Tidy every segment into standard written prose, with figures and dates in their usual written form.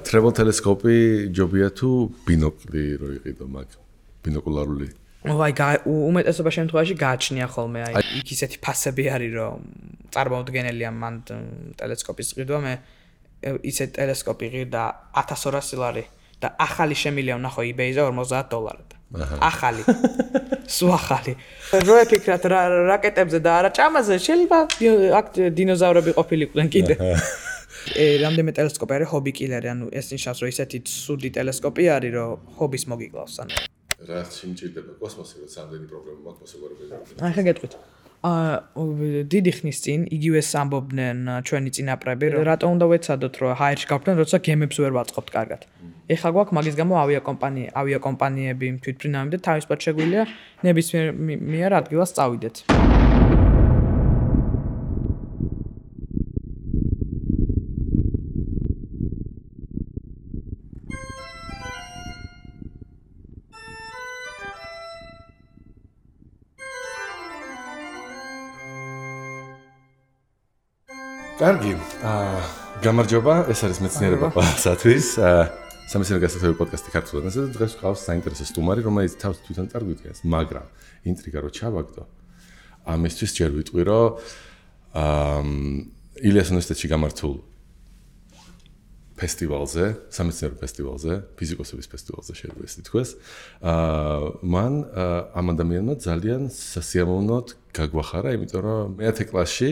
travel telescope ჯობია თუ ბინოკლი რო იყიდო მაგ ბინოკულარული უმეტესობა შემთხვევაში გააჩნია ხოლმე აი იქ ისეთი ფასები არის რომ წარმოუდგენელია მან ტელესკოპის ყიდვა მე ისეთ ტელესკოპი ყიდა 1200 ლარი და ახალი შემილია ვნახო eBay-ზე $50 ახალი სულ ახალი რო ეფიქრათ რაკეტებზე და არა ჭამაზე შეიძლება აქ დინოზავრები ყოფილიყვნენ კიდე რამდენიმე ტელესკოპი არის ჰობი კილერი ანუ ეს ნიშნავს რომ ისეთი ცუდი ტელესკოპი არის რომ ჰობის მოგიკლავს ანუ რა სიმჭირდება კოსმოსი როცა ამდენი პრობლემა მაქვს მოსაგვარებელი აი ხა გეტყვით დიდი ხნის წინ იგივეს ამბობდნენ ჩვენი წინაპრები რატომ უნდა ვეცადოთ რომ ჰაერში გავხდნენ როცა გემებს ვერ ვაწყობთ კარგად ეხლა გვაქვს მაგის გამო ავიაკომპანიები თვითმფრინავები და თავისუფლად შეგვიძლია ნებისმიერ ადგილას წავიდეთ კარგი, გამარჯობა, ეს არის მეცნიერება ყველასათვის. სამეცნიერო გასათვალისწინებელ პოდკასტი ქართულად. ასე დღეს გვყავს საინტერესო სტუმარი, რომელიც თავს თვითონ წარგვიდგენს, მაგრამ ინტრიგა რო ჩავაგდო. ამისთვის ჯერ ვიტყვი, რომ ილიას უნივერსიტეტში გამართულ ფესტივალზე, სამეცნიერო ფესტივალზე, ფიზიკოსების ფესტივალზე შეიძლება ეს ითქვას. მან ამ ადამიანმა ძალიან სასიამოვნოდ გაგვახარა, იმიტომ რომ მე-10 კლასში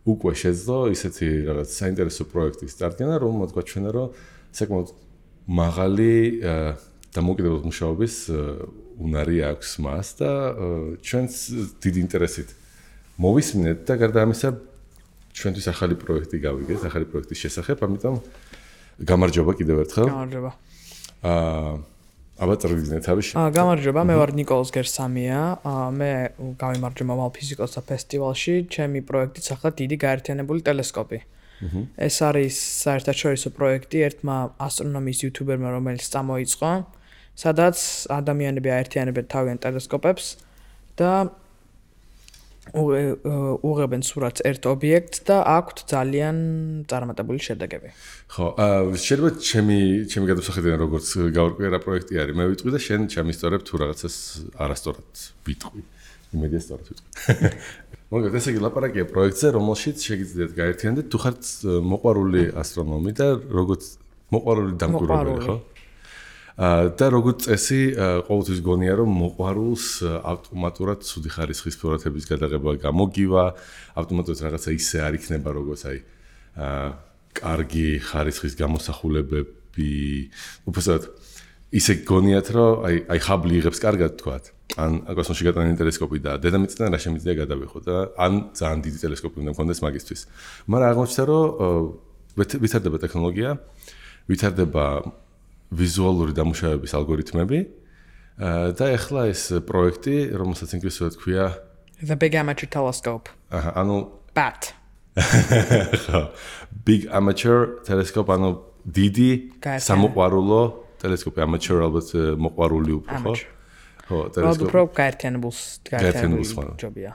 უკვე შეძლო ისეთი რაღაც საინტერესო პროექტის წარდგენა, რომელმაც გვაჩვენა, რომ საკმაოდ მაღალი დამოუკიდებლობის მუშაობის უნარი აქვს მას და ჩვენს დიდი ინტერესით მოვისმინეთ და გარდა ამისა ჩვენთვის ახალი პროექტი გავიგეთ, ახალი პროექტის შესახებ, ამიტომ გამარჯობა კიდევ ერთხელ. გამარჯობა. აბა წარვიგზნე თავის. გამარჯობა, მე ვარ ნიკოლოზ გერსამია. მე გავიმარჯვე მომავალ ფიზიკოსთა ფესტივალში, ჩემი პროექტიც ახლა დიდი გაერთიანებული ტელესკოპი. ეს არის საერთაშორისო პროექტი ერთმა ასტრონომიის იუთუბერმა, რომელიც წამოიწყო, სადაც ადამიანები აერთიანებენ თავიანთ ტელესკოპებს და უღებენ სურათს ერთ ობიექტს და აქვთ ძალიან წარმატებული შედეგები. ხო, შეიძლება ჩემი გადმოსახედიდან როგორც გავარკვიე რა პროექტი არის, მე ვიტყვი და შენ ჩამისწორებ თუ რაღაცას არასწორად ვიტყვი. იმედია სწორად ვიტყვი. მოგეთ, ესე იგი ლაპარაკია პროექტზე, რომელშიც შეგიძლიათ გაერთიანდეთ თუ ხართ მოყვარული ასტრონომი და როგორც მოყვარული დამკვირვებელი, ხო? და როგორც წესი, ყოველთვის გონია რომ მოყვარულს ავტომატურად ცუდი ხარისხის სურათების გადაღება გამოგივა, ავტომატურად რაღაცა ისე არ იქნება როგორც აი კარგი ხარისხის გამოსახულებები, უბრალოდ ისე გონიათ რომ აი ხაბლი იღებს კარგად თქვათ. ან კოსმოსში გატანილი ტელესკოპი და დედამიწიდან რა შემიძლია გადავიხო და ან ძალიან დიდი ტელესკოპი უნდა მქონდეს მაგისთვის. მაგრამ აღმოჩნდა რომ ვითარდება ტექნოლოგია, ვითარდება ვიზუალური დამუშავების ალგორითმები და ეხლა ეს პროექტი, რომელსაც ინგლისურად ქვია The Big Amateur Telescope. ანუ BAT. Big Amateur Telescope, ანუ დიდი სამოყვარულო ტელესკოპი, amateur ალბათ მოყვარული უფრო, ხო? ხო, ტელესკოპი. უფრო გაერთიანებულს ჯობია.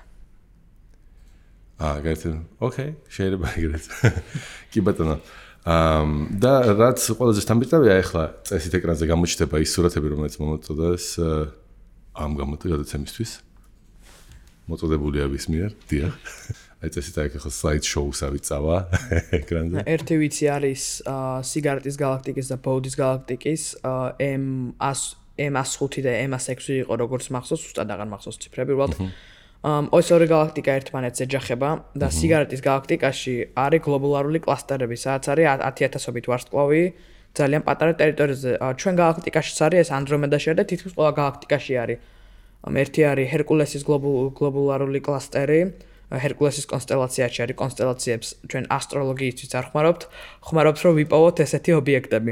გაერთიანებული. ოკეი, შეიძლება ეგრეთ. კი ბატონო. და რაც ყველაზე სტანდარტია ახლა წესით ეკრანზე გამოჩნდება ის სურათები, რომელიც მომწოდდეს ამ გადაცემისთვის. მოწოდებულია ვის მიერ? დიახ. აი წესით ახლა slide show-სავით წავა ეკრანზე. ერთი ვიცი არის სიგარეტის galaktikis და Bowdis galaktikis M105 და M106 იყო როგორც მახსოვს, უბრალოდ აღარ მახსოვს ციფრები, უბრალოდ ეს ორი galaktika ერთმანეთს ეჯახება და სიგარეტის galaktikაში არის გლობულარული კლასტერები, სადაც არის 10000-ობით ვარსკვლავი ძალიან პატარა ტერიტორიაზე. ჩვენ galaktikაშიც არის ეს Andromeda-ში და თითქმის ყველა galaktikაში არის. ერთი არის Hercules's გლობულარული კლასტერი, Hercules's კონსტელაციაში არის კონსტელაციებს ჩვენ ასტროლოგიისთვის არ ხმარობთ რომ ვიპოვოთ ესეთი ობიექტები.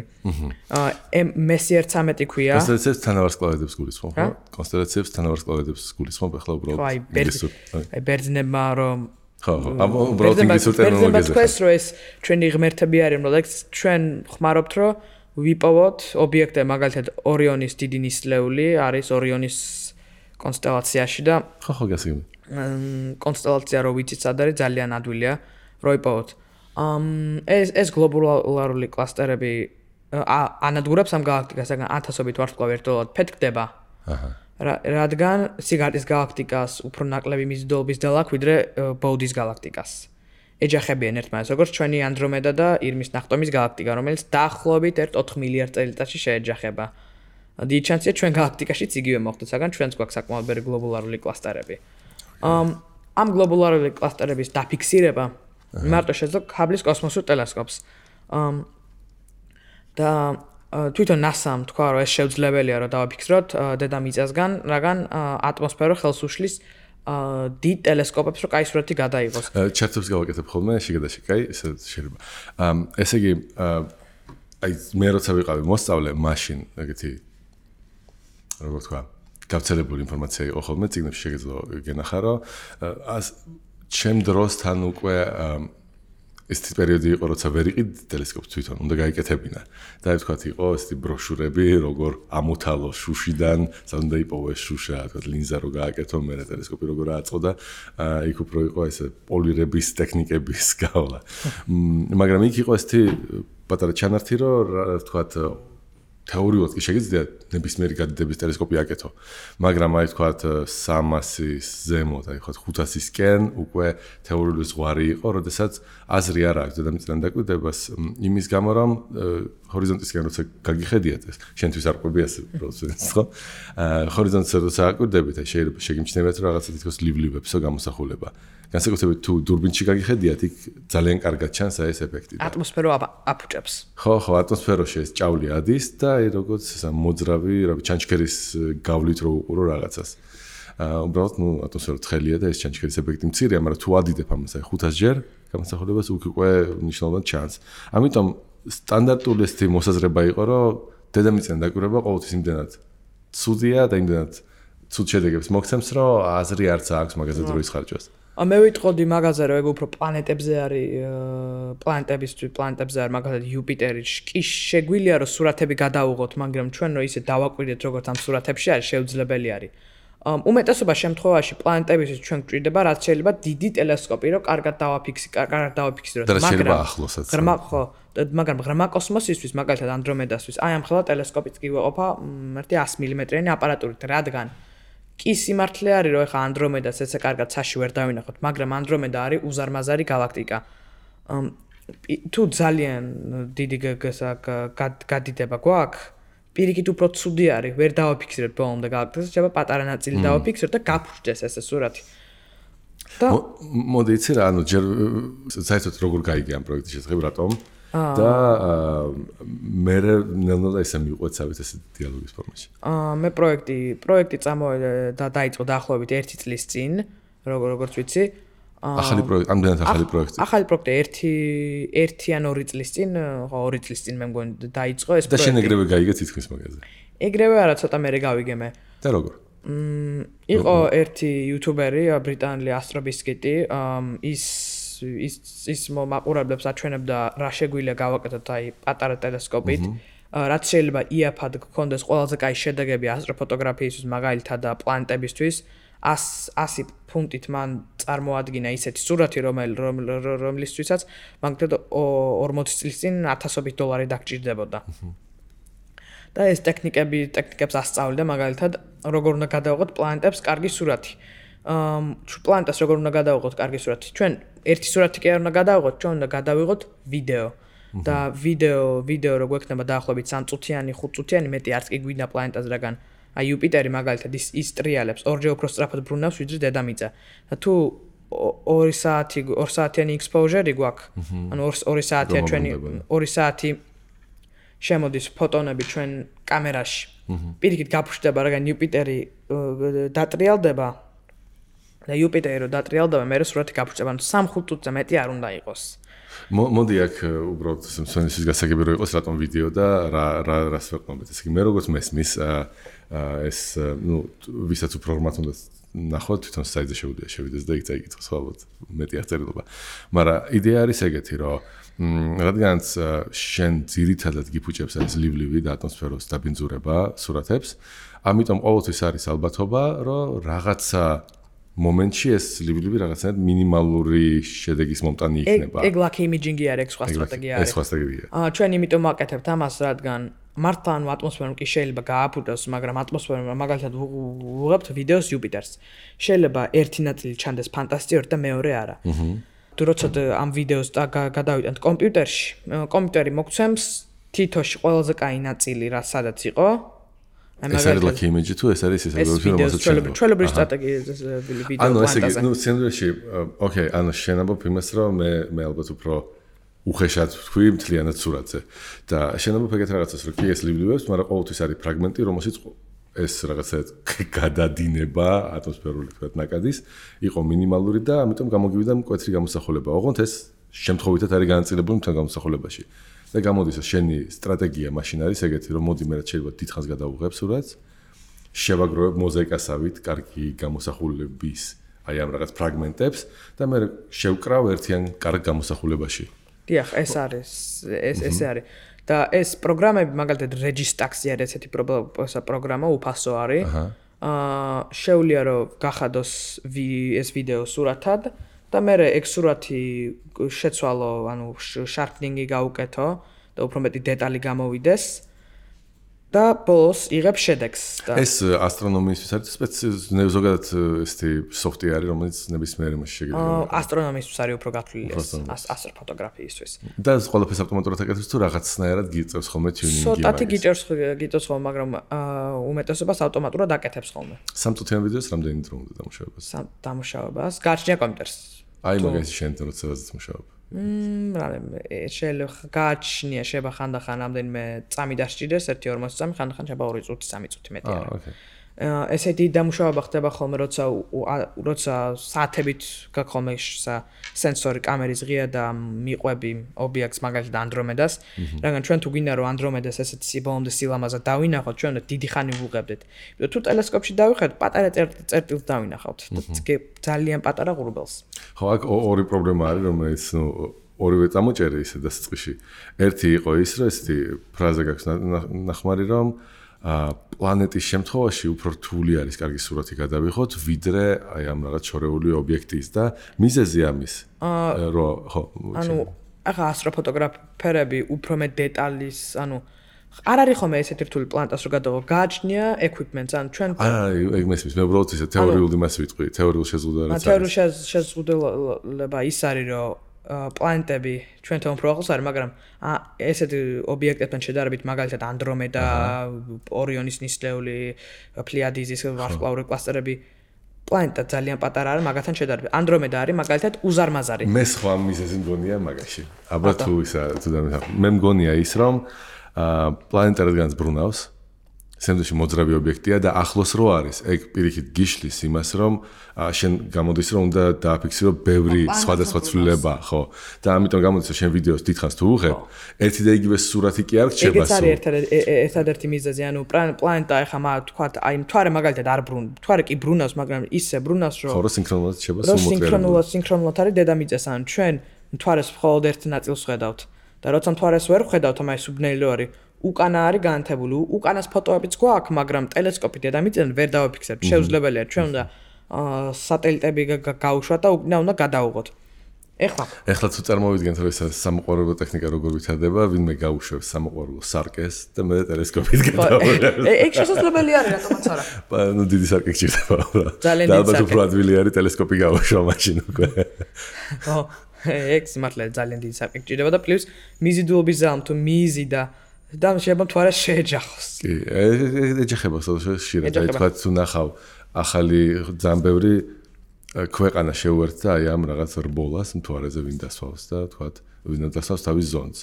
Messier 13 ქვია. კონსტელაციებს თანავარსკვლავედებს გულისხმობ, ხო? კონსტელაციებს თანავარსკვლავედებს გულისხმობ, ახლა უბრალოდ აი ბერძნებმა რომ ხო, უბრალოდ ინგლისურ ტერმინოლოგიაზე. ეს რო ეს ჩვენი ღმერთები არის, რომელიც ჩვენ ხმარობთ რომ ვიპოვოთ ობიექტები, მაგალითად ორიონის დიდი ნისლეული არის ორიონის კონსტელაციაში და ხო გასაგები. კონსტელაცია რო ვიცით სად არის ძალიან ადვილია რო იპოვოთ. ეს გლობულარული კლასტერები ანადგურებს ამ galaktikas, რადგან ათასობით ვარსკვლავი ერთდროულად ფეთქდება. რადგან სიგარტის galaktikas უფრო ნაკლები მიზიდულობის დელ აქვს ვიდრე ბოუდის galaktikas. ეჯახებიან ერთმანეთს, როგორც ჩვენი ანდრომედა და ირმის ნახტომის galaktika, რომელიც დაახლოებით 4 მილიარდ წელიწადში შეეჯახება. დიდი შანსია ჩვენ galaktikაშიც იგივე მოხდეს, საგან ჩვენც გვაქვს საკმაოდ ბევრი გლობულარული კლასტერები. ამ გლობულარული კლასტერების დაფიქსირება მარტო შეძლო ჰაბლის კოსმოსურ ტელესკოპს. და თვითონ NASA-მ თქვა, რომ ეს შეუძლებელია, რომ დავაფიქსიროთ დედამიწასგან, რადგან ატმოსფერო ხელს უშლის დიდ ტელესკოპებს, რომ კაი სურათი გადაიღოს. ჩარტებს გავაკეთებ ხოლმე შეგადაში, კაი, ესე შეიძლება. ესე იგი, აი მე როცა ვიყავი მოსწავლე, მაშინ ეგეთი როგორ თქვა, გავრცელებული ინფორმაცია იყო ხოლმე, წიგნებში შეგეძლო გენახა, რომ ჩემ დროსთან უკვე ეს პერიოდი იყო, როცა ვერ იყიდ ტელესკოპს თვითონ, უნდა გაიკეთებინა. და ვთქვათ, იყო ესეთი ბროშურები, როგორ ამოთალო შუშიდან, სანამ დაიპოვეს შუშა, თქვათ, ლინზა რო გააკეთო, მე ტელესკოპი როგორ აწყო და იქ უფრო იყო ესე პოლირების ტექნიკების გავლა. მაგრამ იქ იყო ესეთი პატარა ჩანართი, რომ ვთქვათ, თეორიულად კი შეგიძლია ნებისმიერი გადიდების ტელესკოპი აკეთო. მაგრამ აი ვთქვათ 300-ის ზემოთ, აი ვთქვათ 500-ისკენ უკვე თეორიული ზღვარი იყო, როდესაც აზრი არ აქვს დედამიწიდან დაკვირდებას იმის გამო, რომ ჰორიზონტისკენ როცა გაგიხედიათ ეს, შენთვის არ ყვები ასე პროცესს, ხო? ჰორიზონტს როცა აკვირდებით, აი შეიძლება შეგიმჩნევათ რომ რაღაცა თითქოს ლივლებსო გამოსახულება. განსაკუთრებით თუ დურბინში გაგიხედიათ, იქ ძალიან კარგად ჩანს აი ეს ეფექტი. ატმოსფერო აფუჭებს. ხო, ატმოსფეროში ეს ჭავლი ადის და აი როგორც ესა მოძრავი, ჩანჩქერის გავლით რო უყურო რაღაცას. უბრალოდ, ატმოსფერო ცხელია და ეს ჩანჩქერის ეფექტი მცირეა, მაგრამ თუ ადიდებ ამას აი 500 ჯერ გამოსახულებას უკ უკვე ნიშნულად ჩანს. ამიტომ სტანდარტული ესეთი მოსაზრება იყო, რომ დედამიწიდან დაკვირვება ყოველთვის იმდენად ცუდია და იმდენად ცუდ შედეგებს მოგცემს, რომ აზრი არც აქვს მაგაზე დროის ხარჯვას. მე ვიტყოდი მაგაზე, რომ ეგ უფრო პლანეტებზე არის, პლანეტებზე არის, მაგალითად იუპიტერი, კი შეგვიძლია რომ სურათები გადავუღოთ, მაგრამ ჩვენ რომ ისე დავაკვირდეთ, როგორც ამ სურათებში არის, შეუძლებელი არის. უმეტესობა შემთხვევაში პლანეტებისთვის ჩვენ გვჭირდება, რაც შეიძლება დიდი ტელესკოპი, რომ კარგად დავაფიქსიროთ, მაგრამ ახლოსაც. მაგრამ ღრმა კოსმოსისთვის, მაგალითად ანდრომედასთვის, აი ამ ხელა ტელესკოპიც კი ვეყოფა 100 მმ-იანი აპარატურით, რადგან კი სიმართლე არის, რომ ეხა ანდრომედას ესე კარგად ცაში ვერ დავინახოთ, მაგრამ ანდრომედა არის უზარმაზარი galaktika. თუ ძალიან დიდი გადიდება გვაქვს, პირიქით უფრო ცუდი არის, ვერ დავაფიქსირებთ ბოლომდე galaktikas, შეიძლება პატარა ნაწილი დავაფიქსიროთ და გაფრჩდეს ესე სურათი. მოდი იცი რა, ანუ ჯერ საერთოდ როგორ გაიგე ამ პროექტის შესახებ, რატომ? და მე ნელ-ნელა ისე მიყვეცავით ეს დიალოგის ფორმაში. მე პროექტი წამოვიდა და დაიწყო დაახლოებით 1 წლის წინ, როგორც ვიცი. ახალი პროექტი, ამდენად ახალი პროექტი. ახალი პროექტი 1 ან 2 წლის წინ, ხო 2 წლის წინ მე მგონი დაიწყო ეს პროექტი. და შენ ეგრევე გაიგე თითქმის მაგაზე. ეგრევე არა, ცოტა მერე გავიგე მე. და როგორ? იყო ერთი იუთუბერი, ბრიტანელი ასტრობისკიტი, ის მაყურებლებს აჩვენებდა რა შეგვიძლია გავაკეთოთ აი პატარა ტელესკოპით, რაც შეიძლება იაფად გქონდეს ყველაზე კაი შედეგები ასტროფოტოგრაფიისთვის, მაგალითად და პლანეტებისთვის. 100 ფუნტით მან წარმოადგინა ისეთი სურათი, რომლისთვისაც მაგალითად 40 წლის წინ $1000 დაგჭირდებოდა. და ეს ტექნიკებს ასწავლიდა, მაგალითად, როგორ უნდა გადავიღოთ პლანეტებს კარგი სურათი. პლანეტას როგორ უნდა გადავიღოთ კარგი სურათი? ჩვენ ერთი სურათი კი არ უნდა გადავიღოთ, ჩვენ უნდა გადავიღოთ ვიდეო. და ვიდეო რო გვექნება დაახლოებით 3 წუთიანი, 5 წუთიანი, მეტი არც კი გვინდა პლანეტაზე, რადგან აი იუპიტერი მაგალითად ის ტრიალებს, ორჯერ უფრო სწრაფად ბრუნავს ვიდრე დედამიწა. და თუ 2 საათიანი exposure-ი გვაქვს, ანუ 2 საათია ჩვენი 2 საათი შემოდის ფოტონები ჩვენ კამერაში. პირიქით გაფრჩდება, რადგან იუპიტერი დატრიალდება და იუპიტერი რო დატრიალდება, მე სურათი გაფრჩდება, ანუ 3-5 წუთზე მეტი არ უნდა იყოს. მოდი აქ უბრალოდ მსმენელისთვის გასაგები რო იყოს რატომ ვიდეო და რას ვეყნობთ. ესე იგი მე როგორც მესმის ეს ვისაც უფრო ღრმად უნდა ნახოთ, თვითონ საიტზე შევიდეს და იქ წაიკითხოს ალბათ მეტი აღწერილობა. მაგრამ იდეა არის ეგეთი, რომ რადგანაც შენ ძირითადად გიფუჭებს ეს ლივლივი და ატმოსფეროს დაბინძურება სურათებს, ამიტომ ყოველთვის არის ალბათობა, რომ რაღაცა მომენტში ეს ლიბლიბი რაღაცნაირად მინიმალური შედეგის მომტანი იქნება. ეგ lucky imaging-ი არის, ეგ სხვა სტრატეგია არის. ეს სხვა სტრატეგია. ჩვენ იმიტომ ვაკეთებთ ამას, რადგან მართლა ანუ ატმოსფერომ კი შეიძლება გააფუძოს, მაგრამ ატმოსფერომ მაგალითად ვუღებთ ვიდეოს იუპიტერს. შეიძლება ერთი ნაწილი ჩანდეს ფანტასტიკური და მეორე არა. თუ როცა ამ ვიდეოს გადავიტანთ კომპიუტერში, კომპიუტერი მოგცემს თითოში ყველაზე კაი ნაწილი, რა სადაც იყო. ეს არის lucky image თუ ეს არის ეს ჩვეულებრივი სტრატეგია ვიდეო ანუ ესე იგი, ნუ სცენარში, ოკეი, ანუ შენამბობ იმას, რომ მე ალბათ უფრო უხეშად ვთქვი მთლიანად სურათზე და შენამბობ ეგეთ რაღაცას, რომ კი ეს ლიბლიბებს, მაგრამ ყოველთვის არის ფრაგმენტი, რომელშიც ეს რაღაცა გადადინება ატმოსფერული თქვათ ნაკადის იყო მინიმალური და ამიტომ გამოგივიდა მკვეთრი გამოსახულება. ოღონდ ეს შემთხვევითად არის განაწილებული მთელ გამოსახულებაში. და გამოდის შენი სტრატეგია მაშინ არის ეგეთი, რომ მოდი მე რაც შეიძლება დიდხანს გადავუღებ სურათს, შევაგროვებ მოზაიკასავით კარგი გამოსახულების აი ამ რაღაც ფრაგმენტებს და მე შევკრავ ერთიან კარგ გამოსახულებაში. დიახ, ეს არის, ესე არის. და ეს პროგრამები, მაგალითად Registax-ი არის ესეთი პროგრამა, უფასო არის. შეუძლია რომ გახადოს ეს ვიდეო სურათად და მე ეგ სურათი შეცვალო, ანუ sharpening-ი გაუკეთო და უფრო მეტი დეტალი გამოვიდეს და ბოლოს იღებ შედეგს და ეს ასტრონომიისთვის არის ზოგადად ესეთი სოფტი არის, რომელიც ნებისმიერ იმაში შეგიძლია. ასტრონომიისთვის არის უფრო გათვლილი ასტროფოტოგრაფიისთვის. და ყველაფერს ავტომატურად აკეთებს თუ რაღაცნაირად გიწევს ხოლმე tuning-ი. ცოტათი გიწევს ხოლმე, მაგრამ უმეტესობას ავტომატურად აკეთებს ხოლმე. სამწუთიან ვიდეოს რამდენი დრო უნდა დამუშავებას? დამუშავებას გააჩნია კომპიუტერს. აი მაგაში შენ როცა მუშაობ. შეიძლება გააჩნია შეიძლება ხანდახან რამდენიმე წამი დასჭირდეს 1-2 წამი, ხანდახან შეიძლება 2 წუთი, 3 წუთი მეტი არა. ესეთი დამუშავება ხდება ხოლმე, როცა საათებით გაქვს ხოლმე სენსორი კამერის ღია და მიყვები ობიექტს, მაგალითად ანდრომედას, რადგან ჩვენ თუ გვინდა რომ ანდრომედას ესეთი ბოლომდე სილამაზად დავინახოთ, ჩვენ უნდა დიდი ხანი ვუღებდეთ. იმიტომ თუ ტელესკოპში დავიხართ, პატარა წერტილს დავინახავთ და ძალიან პატარა ღრუბელს. ხო, აქ ორი პრობლემა არის, რომელიც ორივე წამოჭერი ისე დასაწყისში. ერთი იყო ის, რომ ესეთი ფრაზა გაქვს ნახმარი, რომ პლანეტის შემთხვევაში უფრო რთული არის კარგი სურათი გადავიღოთ, ვიდრე აი ამ რაღაც შორეული ობიექტის და მიზეზი ამის. ხო. ანუ ახლა ასტროფოტოგრაფერები უფრო მეტ დეტალის, ანუ არ არის ხოლმე ესეთი რთული პლანეტას რო გადავიღო, გააჩნია equipment-ს, ანუ ჩვენ ეგ მესმის, მე უბრალოდ ისე თეორიული მას ვიტყვი, თეორიულ შეზღუდვას. თეორიული შეზღუდვა ის არის, რომ პლანეტები ჩვენთან უფრო ახლოს არის, მაგრამ ესეთი ობიექტებთან შედარებით, მაგალითად ანდრომედა, ორიონის ნისლეული, პლიადიზის ვარსკვლავური კლასტერები, პლანეტა ძალიან პატარა არის მაგათთან შედარებით. ანდრომედა არის მაგალითად უზარმაზარი. მე სხვა მიზეზი მგონია მაგაში. აბა თუ ისა თუ მე მგონია ის, რომ პლანეტა რადგანაც ბრუნავს, სამდროში მოძრავი ობიექტია და ახლოს რო არის, ეგ პირიქით გიშლის იმას, რომ შენ გამოდის, რომ უნდა დააფიქსირო ბევრი სხვადასხვა ცვლილება, ხო? და ამიტომ გამოდის, რომ შენ ვიდეოს დიდხანს თუ უღებ, ერთი და იგივე სურათი კი არ რჩება. ეგეც არის ერთადერთი მიზეზი, ანუ პლანეტა ეხლა თქვათ, აი მთვარე მაგალითად არ მთვარე კი ბრუნავს, მაგრამ ისე ბრუნავს, რომ ხო, სინქრონულად რჩება სულ სინქრონულად არის დედამიწას, ანუ ჩვენ მთვარეს მხოლოდ ერთ ნაწილს ხედავთ. და როცა მთვარეს ვერ ხედავთ, ამას სუბნელი რო არის უკანა არის განათებული, უკანას ფოტოებიც გვაქვს, მაგრამ ტელესკოპი დედამიწიდან ვერ დავაფიქსებთ. შეუძლებელია, ჩვენ უნდა სატელიტები გაუშვათ და უკანა უნდა გადავუღოთ. ეხლა თუ წარმოვიდგენთ, რომ ეს სამოყვარულო ტექნიკა როგორ ვითარდება, ვინმე გაუშვებს სამოყვარულო სარკეს და მე ტელესკოპით გადავუღებ. ეგ შესაძლებელი არის, რატომაც არა. ნუ დიდი სარკე გჭირდება. ძალიან დიდი სარკე. და უფრო ადვილი არის ტელესკოპი გაუშვა მაშინ უკვე. ხო, ეგ სიმართლე ძალიან დიდი სარკე გჭირდება და პლუს მიზიდულობის ზამ თუ მიზი და შეიძლება მთვარეს შეეჯახოს. კი, ეჯახება ხშირად, აი თქვა თუ ნახავ ახალი ძალიან ბევრი ქვეყანა შეუერთდა აი ამ რაღაც რბოლას მთვარეზე ვინ დასვავს და თქვა ვინ დასვავს თავის ზონს.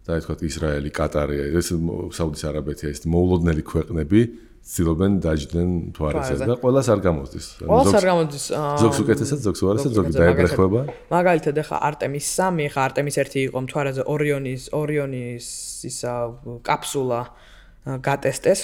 და აი თქვა ისრაელი, კატარი, ეს საუდის არაბეთი, ეს მოულოდნელი ქვეყნები ცდილობენ დაჯდნენ მთვარეზე და ყველას არ გამოსდის. ყველას არ გამოსდის. ზოგს უკეთესად, ზოგს უარესად, ზოგი დაებრეხება. მაგალითად ახლა არტემის 3, ახლა არტემის 1 იყო მთვარეზე ორიონის ისა კაფსულა გატესტეს,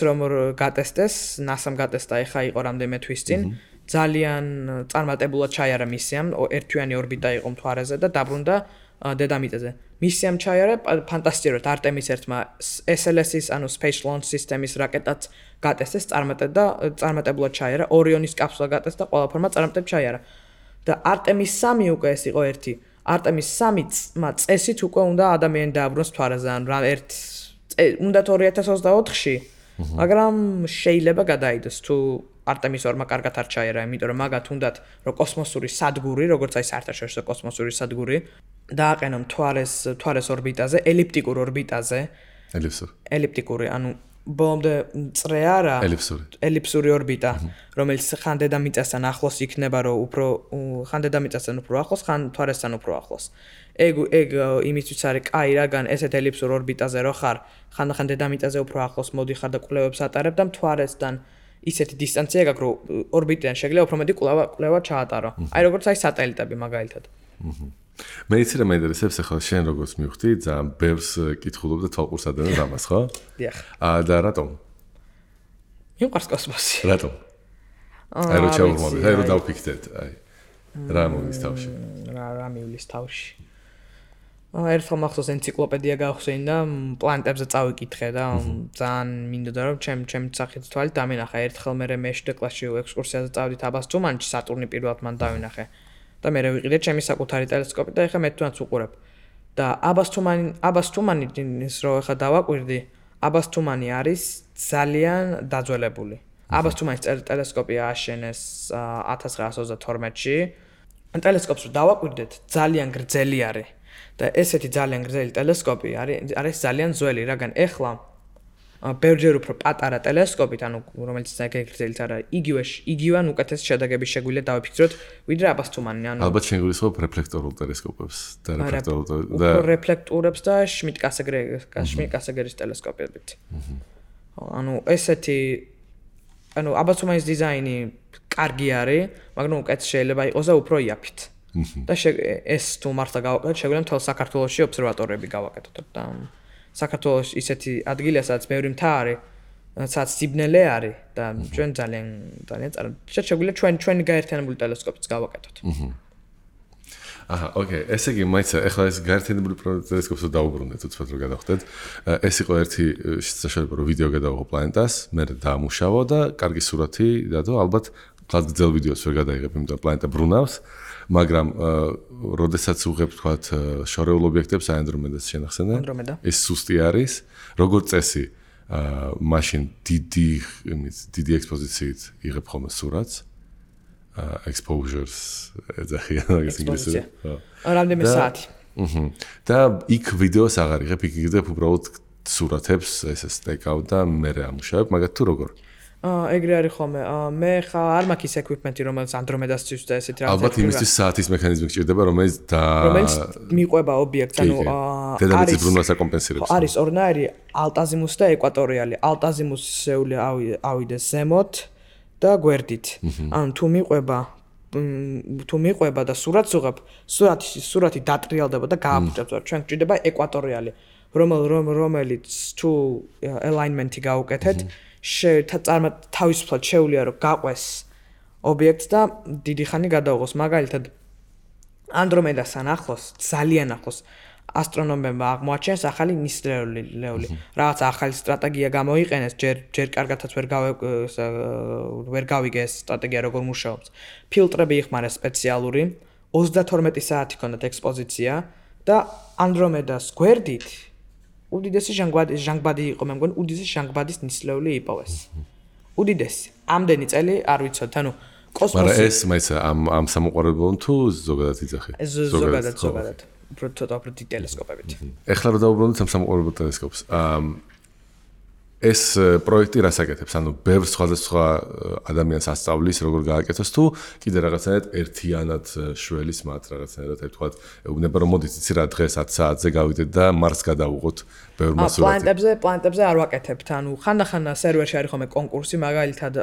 გატესტეს, NASA-მ გატესტა ახლა იყო რამდენიმე თვის წინ. ძალიან წარმატებულად ჩაიარა მისიამ, ერთთვიანი ორბიტა იყო მთვარეზე და დაბრუნდა დედამიწაზე. მისი ამ ჩაიარა ფანტასტიკურად არტემის ერთმა SLS-ის, ანუ Space Launch System-ის რაკეტაც გატესტეს, წარმატებულად ჩაიარა, ორიონის კაფსულა გატესტა, ყველაფერმა წარმატებით ჩაიარა. და არტემის 3 უკვე ეს იყო ერთი. არტემის 3 წესით უკვე უნდა ადამიანი დააბრუნოს მთვარეზე, ან რა უნდა 2024-ში, მაგრამ შეიძლება გადაიდოს თუ არტემის 2-მა კარგად არ ჩაიარა, იმიტომ რომ მაგათ უნდათ რომ კოსმოსური სადგური, როგორც აი საერთაშორისო კოსმოსური სადგური, დააყენონ მთვარის ორბიტაზე, ელიფტიკურ ორბიტაზე. ელიფტიკური, ანუ ბოლომდე წრე არა, ელიფსური ორბიტა, რომელიც ხან დედამიწასთან ახლოს იქნება, რომ უფრო ხან დედამიწასთან უფრო ახლოს, ხან მთვარესთან უფრო ახლოს. ეგ იმისთვის არის კაი, რაგან ესეთ ელიფსურ ორბიტაზე რო ხარ, ხან დედამიწაზე უფრო ახლოს მოდიხარ და კვლევებს ატარებ და მთვარესთან ისეთი დისტანცია გაქვს, რომ ორბიტიდან შეიძლება უფრო მეტი კვლევა ჩაატარო. აი როგორც აი სატელიტები მაგალითად. მე იცი რა მეინტერესებს ახლა შენ როგორც მივხვდი, ძალიან ბევრს კითხულობ და თვალყურს ადევნებ ამას, ხო? დიახ. და რატომ? მიყვარს კოსმოსი. რატომ? აი რო ჩავურმავდეთ, აი რო დავფიქრდეთ, აი. რა მოვლის თავში? რა მივლის თავში? ერთხელ მახსოვს ენციკლოპედია გავხსენე და პლანეტებზე წავიკითხე და ძალიან მინდოდა რომ ჩემ სახით თვალით დამინახა. ერთხელ მე მეშვიდე კლასში ექსკურსიაზე წავდით აბასთუმანში, სატურნი პირველად მან დავინახე. და მე ვიყიდე ჩემი საკუთარი ტელესკოპი და ეხლა მე თვითონაც უყურებ. და აბასთუმანის რო ეხლა დავაკვირდი, აბასთუმანი არის ძალიან დაძველებული. აბასთუმანის ტელესკოპი ააშენეს 1932-ში. ტელესკოპს რო დავაკვირდეთ, ძალიან გრძელი არის. და ესეთი ძალიან გრძელი ტელესკოპი არის ძალიან ძველი, რაგან ეხლა ბევრჯერ უფრო პატარა ტელესკოპით, ანუ რომელიც ძალიან გრძელიც არა, იგივე ან უკეთეს შედეგების შეგვიძლია დავიფიქროთ, ვიდრე აბასთუმანი, ანუ ალბათ შენ გულისხმობ რეფლექტორულ ტელესკოპებს და რეფლექტორებს და შმიდტ-კასეგერის ტელესკოპებით. ანუ ესეთი აბასთუმანის დიზაინი კარგი არის, მაგრამ უკეთეს შეიძლება იყოს და უფრო იაფით. და ეს თუ მართლა გავაკეთოთ, შეგვიძლია მთელ საქართველოში ობსერვატორიები გავაკეთოთ და საქართველოს ისეთი ადგილია, სადაც ბევრი მთა არის, სადაც სიბნელე არის და ჩვენ ძალიან შეგვიძლია ჩვენი გაერთიანებული ტელესკოპიც გავაკეთოთ. აჰა, ოკეი, ესე იგი, მაიცა, ახლა ეს გაერთიანებული ტელესკოპს დავუბრუნდეთ, უცბად რომ გადავხდეთ. ეს იყო ერთი საშუალება, რომ ვიდეო გადავიღო პლანეტას, მე დაამუშავო და კარგი სურათი დადო, ალბათ ხალხ გძელ ვიდეოს ვერ გადაიღებ, იმიტომ რომ პლანეტა ბრუნავს. მაგრამ როდესაც უღებ თქვათ შორეულ ობიექტებს აენდრომედას შენახსენე ეს სუსტი არის როგორც წესი მაშინ დიდი ექსპოზიციით იღებ ხოლმე სურათს exposures ეძახიან მაგას ინგლისურად რამდენიმე საათი და იქ ვიდეოს აღარ იღებ იქ იღებ უბრალოდ სურათებს ესე სტეკავ და მე ამუშავებ მაგათ თუ როგორ ეგრე არის ხოლმე. მე ხა არ მაქვს ის equipment-ი, რომელიც ანდრომედასთვის და ესეთი რაღაცა. ალბათ იმისთვის საათის მექანიზმი გჭირდება, რომელიც მიყვება ობიექტს, ანუ დედამიწის ბრუნვას აკომპენსირებს. არის ორნაირი ალტაზიმუსი და ეკვატორიალი. ალტაზიმუსი შეუძლია ავიდეს ზემოთ და გვერდით. ანუ თუ მიყვება და სურათს უღებ, სურათი დატრიალდება და გააფუჭებს. ჩვენ გჭირდება ეკვატორიალი, რომელიც თუ alignment-ი გაუკეთეთ თავისუფლად შეუძლია რომ გაყვეს ობიექტს და დიდი ხანი გადაუღოს. მაგალითად ანდრომედასთან ახლოს, ძალიან ახლოს ასტრონომებმა აღმოაჩენეს ახალი ნისლეული. რაღაც ახალი სტრატეგია გამოიყენეს, ჯერ კარგადაც ვერ გავიგე ეს სტრატეგია როგორ მუშაობს. ფილტრები იხმარეს სპეციალური, 32 საათი ჰქონდათ ექსპოზიცია და ანდრომედას გვერდით უდიდესი ჟანგბადი იყო, მე მგონი უდიდესი ჟანგბადის ნისლეული იპოვეს. უდიდესი. ამდენი წელი არ ვიცოდეთ, ანუ კოსმოსი. მაგრამ ეს მაიცა ამ სამოყვარულობამ თუ ზოგადად იძახი? ზოგადად. უფრო ტელესკოპებით. ეხლა რომ დავუბრუნდეთ ამ სამოყვარულო ტელესკოპს. ეს პროექტი რას აკეთებს? ანუ ბევრ სხვადასხვა ადამიანს ასწავლის, როგორ გააკეთოს თუ კიდე რაღაცნაირად ერთიანად შველის მათ რაღაცნაირად თქვათ, ეუბნება რომ მოდით იცი რა დღეს 10 საათზე გავიდეთ და მარსს გადავუღოთ ბევრ მასურათი. პლანეტებზე არ ვაკეთებთ. ანუ ხანდახან სერვერში არის ხოლმე კონკურსი, მაგალითად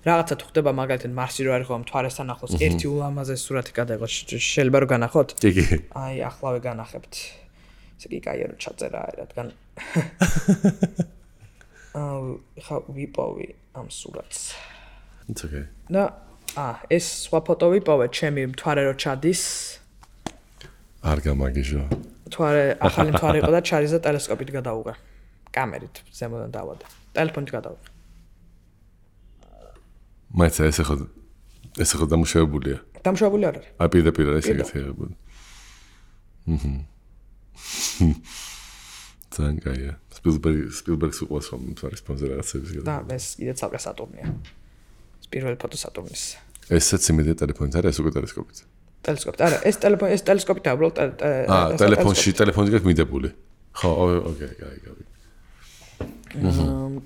რაღაცა თუ ხდება მაგალითად მარსი რო არის ხოლმე მთვარესთან ახლოს ერთი ულამაზესი სურათი გადაიღოს. შეიძლება რომ განახოთ? კი. აი, ახლავე განახებთ. ესე იგი კაია რომ ჩაწერა რადგან ხა ვიპოვე ამ სურათს. It's okay. და ეს სხვა ფოტო ვიპოვე, ჩემი მთვარე რო ჩადის. არ გამაგიჟო. თუ არა ახალი მთვარე იყო და ჩარიზა ტელესკოპით გადაუღე. კამერით ზემოდან დავადა. ტელეფონით გადაუღე. მაინც ეს ხო დამუშავებულია. დამუშავებული არ არის. აი პირდაპირ ეს ეგეთი აღებული. ძალიან კაია. სპილბერგს უყვარს რომ მთვარის ფონზე რაღაცების და ეს კიდე ცალკე სატურნია. პირველი ფოტო სატურნის. ესაც იმედია ტელეფონით არა, ეს უკვე ტელესკოპით. ტელესკოპით არა, ეს ტელესკოპით უბრალოდ ტელეფონში გაქვს მიდებული. ხო, ოკეი, კაი.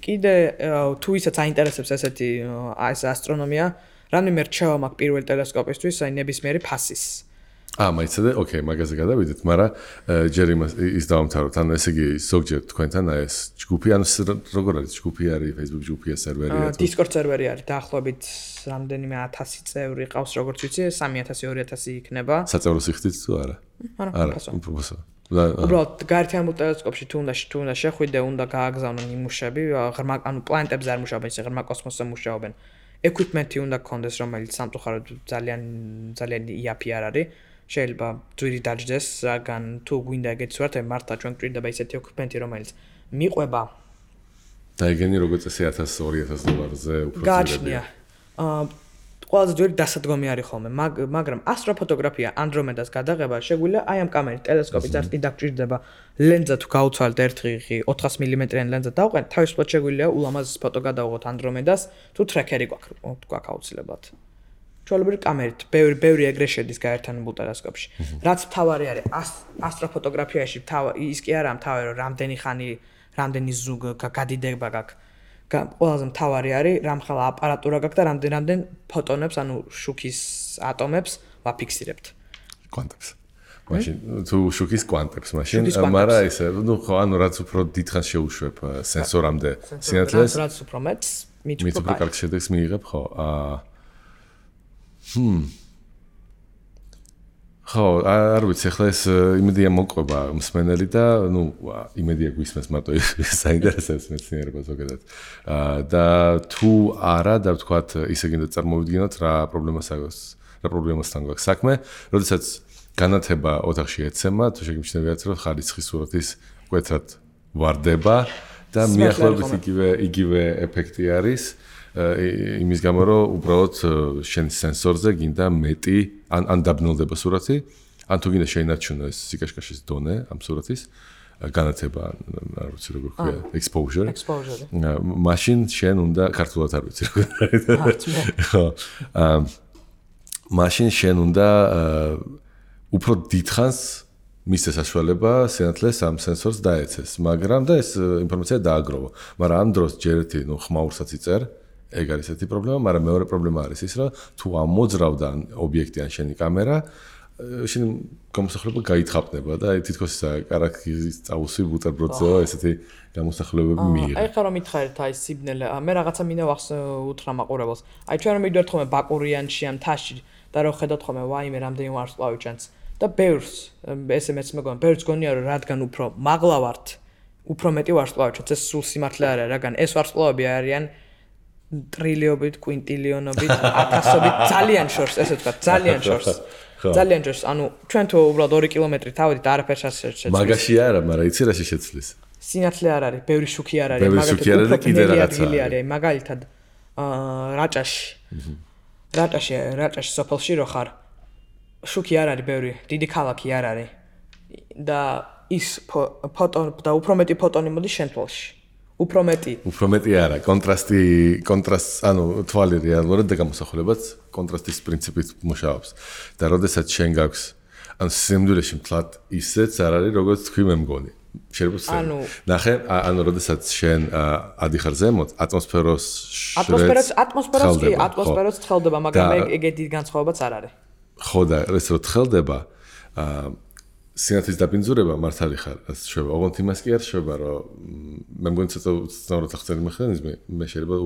კიდე თუ ისაც აინტერესებს ესეთი ეს ასტრონომია, რამდენიმე რჩევა მაქვს პირველი ტელესკოპისთვის, აი ნებისმიერი ფასის. მაიცადე, ოკეი, მაგაზე გადავიდეთ, მაგრამ ჯერ ის დავამთავროთ, ანუ ესე იგი ზოგჯერ თქვენთან ეს ჯგუფი, ანუ როგორ არის ჯგუფი არის, Facebook ჯგუფია, სერვერია თუ Discord სერვერი არის, დაახლოებით რამდენიმე 1000 წევრი ყავს, როგორც ვიცი, 3000-2000 იქნება. საწევრო სიხდით თუ არა? არა, უფროსო. უბრალოდ გაერთიანებულ ტელესკოპში თუ უნდა შეხვიდე, უნდა გააგზავნო ნიმუშები, ანუ პლანეტებზე არ მუშაობენ, ისე ღრმა კოსმოსზე მუშაობენ. Equipment-ი უნდა გქონდეს, რომელიც სამწუხაროდ ძალიან იაფი არ არის. შეიძლება ძვირი დაждდეს, რადგან თუ გვინდა ეგეთი სურათები, მართლა ჩვენ გვჭირდება ისეთი equipment-ი, რომელიც მიყვება და ეგენი როგორც წესი 1000-2000 $-ზე უფრო გააჩნია. ყველაზე ძვირი დასადგომი არის ხოლმე, მაგრამ ასტროფოტოგრაფია Andromeda-ს გადაღება შეგვიძლია აი ამ კამერით, ტელესკოპით არ კიდე გჭირდება ლენზა თუ გაუცვალეთ ერთხი 400 მმ-იანი ლენზა დავყენთ, თავისუფლად შეგვიძლია ულამაზეს ფოტო გადავიღოთ Andromeda-ს, თუ ტრეკერი გვაქვს აუცილებლად. ჩვეულებრივი კამერით, ბევრი ეგრე შედის გაერთიანებულ ტელესკოპში. რაც მთავარი არის ასტროფოტოგრაფიაში, ის კი არა მთავარი, რომ რამდენი ზუგ გადიდება გაქვს. ყველაზე მთავარი არის, რამხელა აპარატურა გაქვს და რამდენ ფოტონებს, ანუ შუქის ატომებს ვაფიქსირებთ. კვანტებს. მაშინ თუ შუქის კვანტებს, მაშინ მაგრამ ისე, ხო, ანუ რაც უფრო დიდხანს შეუშვებ სენსორამდე სინათლეს, რაც უფრო მეტს, მით უფრო კარგ შედეგს მიიღებ, ხო. ხო, არ ვიცი, ახლა ეს იმედია მოყვება მსმენელი და იმედია გვისმენს მარტო საინტერესებს მეცნიერება ზოგადად. და თუ არა და ვთქვათ, ისე გინდა წარმოვიდგინოთ რა პრობლემასთან გვაქვს საქმე, როდესაც განათება ოთახში ეცემა, თუ შეგიმჩნევიათ, რომ ხარისხის სურათის მკვეთრად ვარდება და მიახლოებით იგივე ეფექტი არის. იმის გამო რომ უბრალოდ შენ სენსორზე გინდა მეტი ან დაბნელდება სურათი, ან თუ გინდა შეინარჩუნო ეს სიკაშკაშის დონე ამ სურათის განათება, არ ვიცი როგორ ქვია, exposure. მაშინ შენ უნდა ქართულად არ ვიცი როგორ არის. ხო. მაშინ შენ უნდა უფრო დიდხანს მისცეს საშუალება სინათლეს ამ სენსორს დაეცეს, მაგრამ და ეს ინფორმაცია დააგროვა. მაგრამ ამ დროს ჯერ ერთი ხმაურსაც იწერ. ეგ არის ესეთი პრობლემა, მაგრამ მეორე პრობლემა არის ის, რომ თუ ამოძრავდა ობიექტი ან შენი კამერა, შენ გამოსახლება გაითხაპნება და თითქოს კარაქის წაუსვი ბუტერბროდზე ესეთი გამოსახულებები მიიღე. აი ხა რომ მითხარით აი სიბნელე, მე რაღაცა მინდა უთხრა მაყურებელს. აი ჩვენ რომ მივიდეთ ხოლმე ბაკურიანში ან თაში და რომ ხედავთ ხოლმე ვაიმე რამდენი ვარსკვლავი ჩანს და ბევრს SMS მეგონა, ბევრს გონია რომ რადგან უფრო მაღლა ვართ, უფრო მეტი ვარსკვლავი ჩანს, ეს სულ სიმართლე არ არის, რადგან ეს ვარსკვლავები არიან ტრილიობით, კვინტილიონობით, ათასობით, ძალიან შორს, ესე ვთქვათ, ძალიან შორს. ძალიან შორს, ანუ ჩვენ თუ უბრალოდ 2 კილომეტრი თავით არაფერს არ შეცვლის. მაგაში არა, მაგრამ იცი რა შეცვლის. სინათლე არ არის, ბევრი შუქი არ არის, მაგალითად კიდე რაღაცა არის, მაგალითად რაჭაში სოფელში რო ხარ, შუქი არ არის ბევრი, დიდი ქალაქი არ არის. და ის ფოტონი და უფრო მეტი ფოტონი მოდის შენ თვალში. უფრო მეტი არა, კონტრასტ, ანუ თვალი რეალურად და გამოსახულებაც კონტრასტის პრინციპით მუშაობს. და როდესაც შენ გაქვს, ანუ სიამდვილეში მთლად ისეც არ არის, როგორც თქვი მე მგონი. შეიძლება ნახე, ანუ როდესაც შენ ადიხარ ზემოთ, ატმოსფეროც ცხელდება, მაგრამ ეგეთი განსხვავებაც არ არის. ხო და ეს რო ცხელდება, სინათლის დაბინძურება მართალი ხარ, ასე შევა. ოღონდ იმას კი არ შევა, რომ მე მგონი ცოტა უცნაურად ახსენი მექანიზმი, მე შეიძლება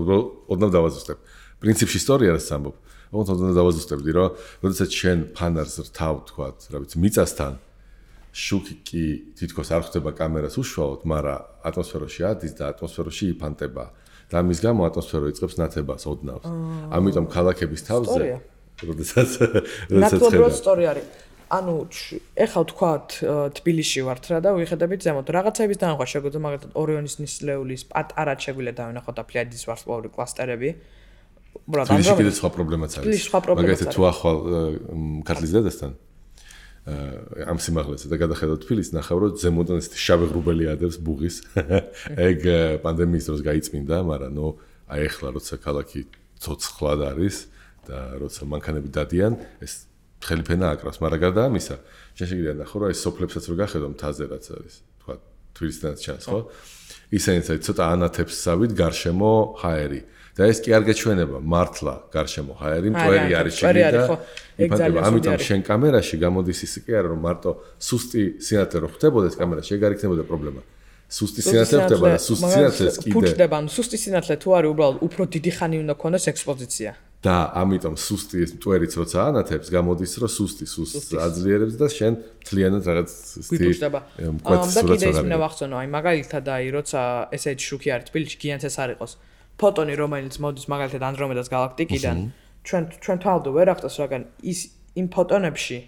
ოდნავ დავაზუსტებ. პრინციპში ისტორია არის ამბობ. ოღონდ ოდნავ დავაზუსტებდი, რომ როდესაც შენ ფანარს რთავ, თქვათ, რა ვიცი, მიწასთან შუქი კი თითქოს არ ხდება კამერას უშუალოდ, მაგრამ ატმოსფეროში ადის და ატმოსფეროში იფანტება. და ამის გამო ატმოსფერო იწყებს ნათებას ოდნავს. ამიტომ ქალაქების თავზე, როდესაც ნათლობრივად სწორი არის. ანუ ეხლა ვთქვათ თბილისში ვართ რა და ვიხედებით ზემოთ რაღაცების დანახვა შეგვიძლია მაგალითად ორიონის ნისლეულის პატარა შეგვიძლია დავინახოთ და ფლიადის ვარსკვლავური კლასტერები. თბილისში კიდე სხვა პრობლემაც არის. მაგალითად თუ ახვალ ქართლის დედასთან ამ სიმაღლეზე და გადახედავ თბილისს ნახავ რომ ზემოდან ესეთი შავი ღრუბელი ადევს ბუღის. ეგ პანდემიის დროს გაიწმინდა, მაგრამ ნუ აი ეხლა როცა ქალაქი ცოცხლად არის და როცა მანქანები დადიან, ეს ხელი ფენა აკრავს, მაგრამ გარდა ამისა, შენ შეგიძლია ნახო რომ აი სოფლებსაც რო გახედავ მთაზე რაც არის, თქვა თბილისთანაც ჩანს, ხო? ისინიც აი ცოტა ანათებს სავით გარშემო ჰაერი. და ეს კი არ გაჩვენება მართლა გარშემო ჰაერი, მტვერი არის შიგნით და იფანტება. ამიტომ შენ კამერაში გამოდის ის კი არა რომ მარტო სუსტი სინათლე რო ხდებოდეს კამერაში, ეგ არ იქნებოდა პრობლემა. სუსტი სინათლე ხდება და სუსტი სინათლეს კიდე ფუჭდება, ანუ სუსტი სინათლე თუ არის უბრალოდ უფრო დიდი ხანი უნდა ქონდეს ექსპოზიცია. და ამიტომ სუსტი ეს მტვერიც როცა ანათებს გამოდის რომ სუსტს აძლიერებს და შენ მთლიანად რაღაც ფუჭდება. და კიდე ის მინდა ვახსენო, აი მაგალითად აი როცა ესეთი შუქი არის თბილისში, გიანც ეს არ იყოს. ფოტონი რომელიც მოდის მაგალითად ანდრომედას გალაქტიკიდან, ჩვენ თვალდო ვერ ახდას რაგან ის იმ ფოტონებში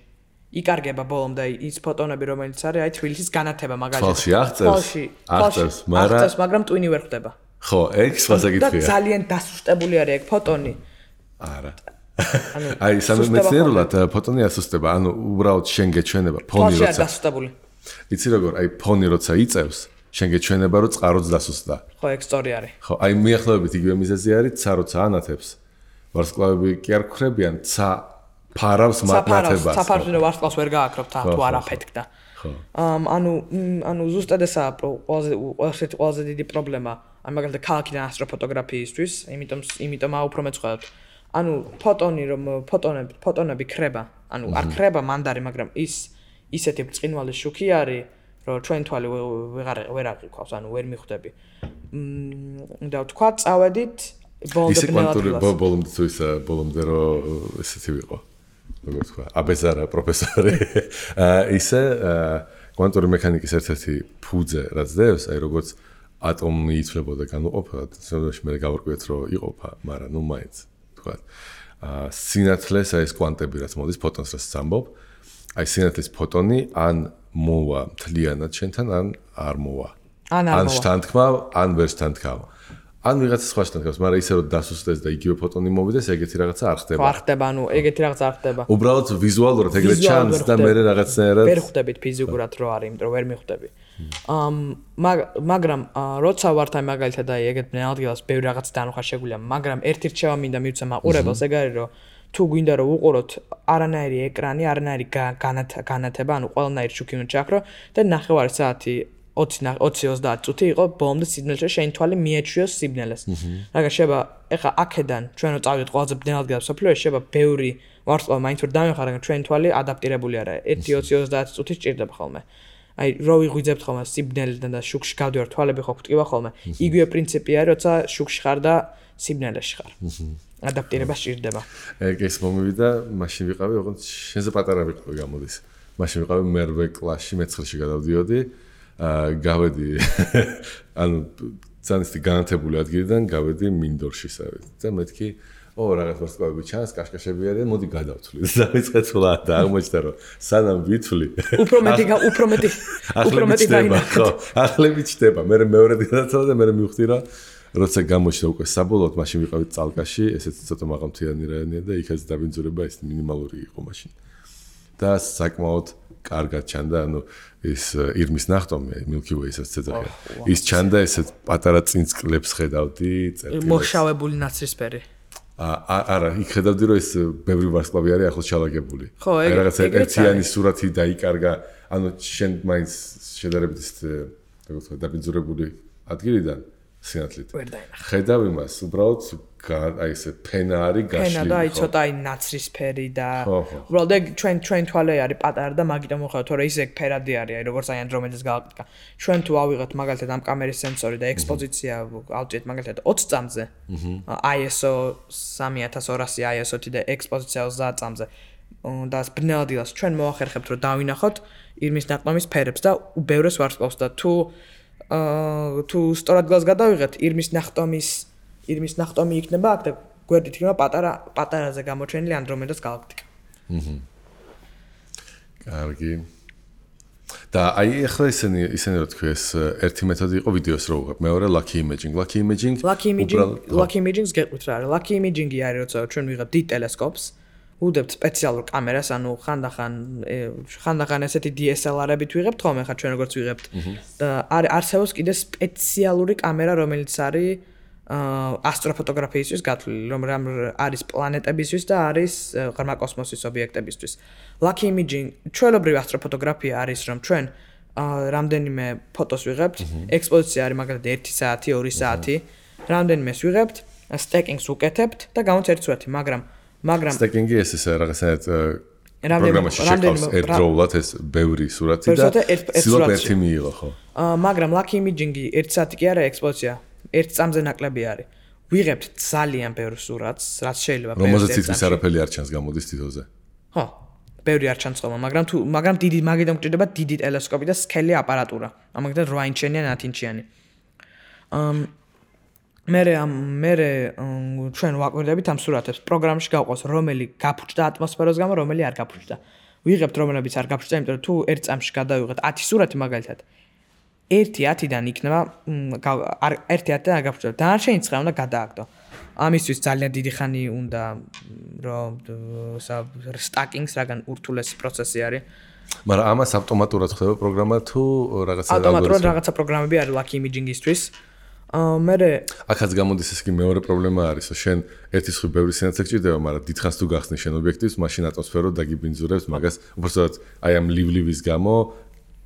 იკარგება ბოლომდე ის ფოტონები რომელიც არის აი თბილისის განათება მაგალითად. თვალში აღწევს, მაგრამ ტვინი ვერ ხდება. ხო, ეგ სხვა საკითხია. და ძალიან დასუსტებული არის ეგ ფოტონი. არა. აი სამეცნიერულად ფოტონი ასუსტება, ანუ უბრალოდ შენ გეჩვენება ფონი როცა. დასუსტებული. იცი როგორ, აი ფონი როცა იწევს, შენ გეჩვენება რომ წყაროც დასუსტდა. ხო, ეგ სწორი არის. ხო, აი მიახლოებით იგივე მიზეზი არის, ცა როცა ანათებს. ვარსკვლავები კი არ გხრებიან, ცა ფარავს მატნათებას. ცა ფარავს ვარსკვლავს ვერ გააკრობ თუ არ აფეთქდა. ხო. ანუ ზუსტად ესაა ყველაზე დიდი პრობლემა. აი მაგალითად ქალაქიდან ასტროფოტოგრაფიისთვის, იმიტომ უფრო მეცხოველთ. ანუ ფოტონები ქრება, ანუ არ ქრება მანდარი, მაგრამ ისეთი ბრწყინვალე შუქი არის, რომ ჩვენ თვალი ვერ აღიქვავს, ანუ ვერ მიხვდები. და ვთქვა, წავედით ბოლომდე რომ ესეთი ვიყო. როგორ თქვა, აბეზარა პროფესორი. ისე კვანტური მექანიკის ერთ-ერთი ფუძე რაც დევს, აი როგორც ატომი იცვლებოდა განუყოფელად, შემდგომში მე გავარკვიეთ რომ იყოფა, მაგრამ ნუ მაინც თქვა. სინათლეს აი ეს კვანტები რაც მოდის ფოტონს რაც ამბობ, აი სინათლის ფოტონი ან მოვა მთლიანად შენთან, ან არ მოვა. ან შთანთქმა, ან ვერ შთანთქავ. ან ვიღაცა სხვა შთანთქავს, მაგრამ ისე რომ დასუსტდეს და იგივე ფოტონი მოვიდეს, ეგეთი რაღაცა არ ხდება. არ ხდება, ანუ ეგეთი რაღაცა არ ხდება. უბრალოდ ვიზუალურად ეგრე ჩანს და მე რაღაცნაირად ვერ ხვდებით ფიზიკურად რო არის, იმიტომ რომ ვერ მიხვდები. მაგრამ როცა ვართ აი მაგალითად აი ეგეთ ბნელადგილას ბევრი რაღაც დანახვა შეგვიძლია, მაგრამ ერთი რჩევა მინდა მივცე მაყურებელს, ეგ არის რომ თუ გვინდა რომ უყუროთ არანაირი ეკრანი, არანაირი განათება, ანუ ყველანაირი შუქი უნდა ჩაქრო და 9:30 საათი 20-30 წუთი იყო ბოლომდე სიბნელეში შენ თვალი მიეჩვიოს სიბნელეს. მაგრამ შეიძლება ეხა აქედან ჩვენ რო წავიდეთ ყველაზე ბნელადგილას სოფლიოში შეიძლება ბევრი ვარსკვლავი მაინც ვერ დამეხარა, მაგრამ ჩვენ თვალი ადაპტირებული არა. 1-20 წუთი სჭირდება ხოლმე. აი რო ვიღვიძებთ ხოლმე სიბნელიდან და შუქში გავდივარ თვალები ხო გვტკივა ხოლმე. იგივე პრინციპი არის, როცა შუქში ხარ და სიბნელეში ხარ. ადაპტირება სჭირდება. ეგ ეს მომივიდა, მაშინ ვიყავი, ოღონდ შენზე პატარა ვიყავი გამოდის. მაშინ ვიყავი მერვე კლასში, მე-9-ში გადავდიოდი. გავედი ანუ ძანისτη განათებული ადგილიდან გავედი მინდორშისავით და მეთქი რაღაც ვარსკვლავები ჩანს, კაშკაშები არიან, მოდი გადავთვლი. და ვიწყე თვლა და აღმოჩნდა რომ სანამ ვითვლი უფრო მეტი ხო, ახლები ჩდება. მე მეორე გადავთვალა და მე მივხვდი რომ როცა გამოჩნდა უკვე საბოლოოდ მაშინ ვიყავით წალკაში, ესეც ცოტა მაღალმთიანი რაიონია და იქაც დაბინძურება ეს მინიმალური იყო მაშინ. და საკმაოდ კარგად ჩანდა, ანუ ის ირმის ნახტომი, Milky Way-საც ეძახიან. ის ჩანდა ესეთ პატარა წინწკლებს ხედავდი, წერტილებს. მოშავებული ნაცრისფერი. არა, იქ ხედავდი რომ ეს ბევრი ვარსკვლავი არის ახლოს ჩალაგებული. ხო, ეგ რაღაცა ერთიანი სურათი დაიკარგა, ანუ შენ მაინც შედარებით ის როგორ ვთქვა, დაბინძურებული ადგილიდან სინათლით. ხედავ იმას, უბრალოდ აი ესე ფენა არის გაშლილი. ფენა და აი ცოტა აი ნაცრისფერი და უბრალოდ ეგ ჩვენ თვალე არის პატარა და მაგიტომ მოხდა, თორე ის ეგ ფერადი არის, აი როგორც აი ანდრომედეს გალაქტიკა. ჩვენ თუ ავიღეთ მაგალითად ამ კამერის სენსორი და ექსპოზიცია ავჭერთ მაგალითად 20 წამზე. ISO 3200 ISO-თი და ექსპოზიცია 30 წამზე. და ბნელადგილას ჩვენ მოახერხებთ რომ დავინახოთ ირმის ნახტომის ფერებს და უბევრეს ვარსკვლავს და თუ სწორად გას გადავიღეთ ირმის ნახტომი იქნება აქ და გვერდით იქნება პატარაზე გამოჩენილი ანდრომედას გალაქტიკა. კარგი. და აი ახლა ისინი რა თქვი ეს ერთი მეთოდი იყო ვიდეოს რო უღებ. მეორე lucky imaging. Lucky imaging-ს გეტყვით რა არის. Lucky imaging-ი არის როცა ჩვენ ვიღებთ დიდ ტელესკოპს, უდევთ სპეციალურ კამერას, ანუ ხანდახან ესეთი DSLR-ებით ვიღებთ ხოლმე ხა ჩვენ როგორც ვიღებთ. და არსებობს კიდე სპეციალური კამერა, რომელიც არის ასტროფოტოგრაფიისთვის გათვლილი, რომ არის პლანეტებისთვის და არის ღრმა კოსმოსის ობიექტებისთვის. Lucky imaging, ჩვეულებრივი ასტროფოტოგრაფია არის, რომ ჩვენ რამდენიმე ფოტოს ვიღებთ, ექსპოზიცია არის მაგალითად 1 საათი, 2 საათი, რამდენიმეს ვიღებთ, სტეკინგს უკეთებთ და გამოც ერთი სურათი, მაგრამ სტეკინგი ეს რაღაცნაირად პროგრამაში შეყავს ერთდროულად ეს ბევრი სურათი და სულაც ერთი მიიღო, ხო? მაგრამ lucky imaging-ი 1 საათი კი არა ექსპოზიცია. 1 წამზე ნაკლები არის. ვიღებთ ძალიან ბევრ სურათს, რაც შეიძლება რომელზეც თითქმის არაფერი არ ჩანს გამოდის თითოზე. ხო, ბევრი არ ჩანს ხოლმე, მაგრამ დიდი მაგიდან გვჭირდება დიდი ტელესკოპი და სკელი აპარატურა. ამაგდან 8 ინჩიანი ან 10 ინჩიანი. მე ჩვენ ვაკვირდებით ამ სურათებს. პროგრამაში გავყავს რომელი გაფუჭდა ატმოსფეროს გამო, რომელი არ გაფუჭდა. ვიღებთ რომელებიც არ გაფუჭდა, იმიტომ რომ თუ 1 წამში გადავიღეთ 10 სურათი მაგალითად 1-10-დან იქნება 1-10-დან არ გაფუჭდა. დანარჩენი 9 უნდა გადააგდო. ამისთვის ძალიან დიდი ხანი უნდა რომ სტაკინგს რაგან ურთულესი პროცესი არის. მაგრამ ამას ავტომატურად ხდება პროგრამა თუ რაღაცა ავტომატურად რაღაცა პროგრამები არის lucky imaging-ისთვის. აქაც გამოდის ეს კი მეორე პრობლემა არის, რომ შენ ერთი სხვი ბევრი სინათლე გჭირდება, მაგრამ დიდხანს თუ გახსნი შენ ობიექტივს, მაშინ ატმოსფერო დაგიბინძურებს მაგას, უბრალოდ აი ამ ლივლის გამო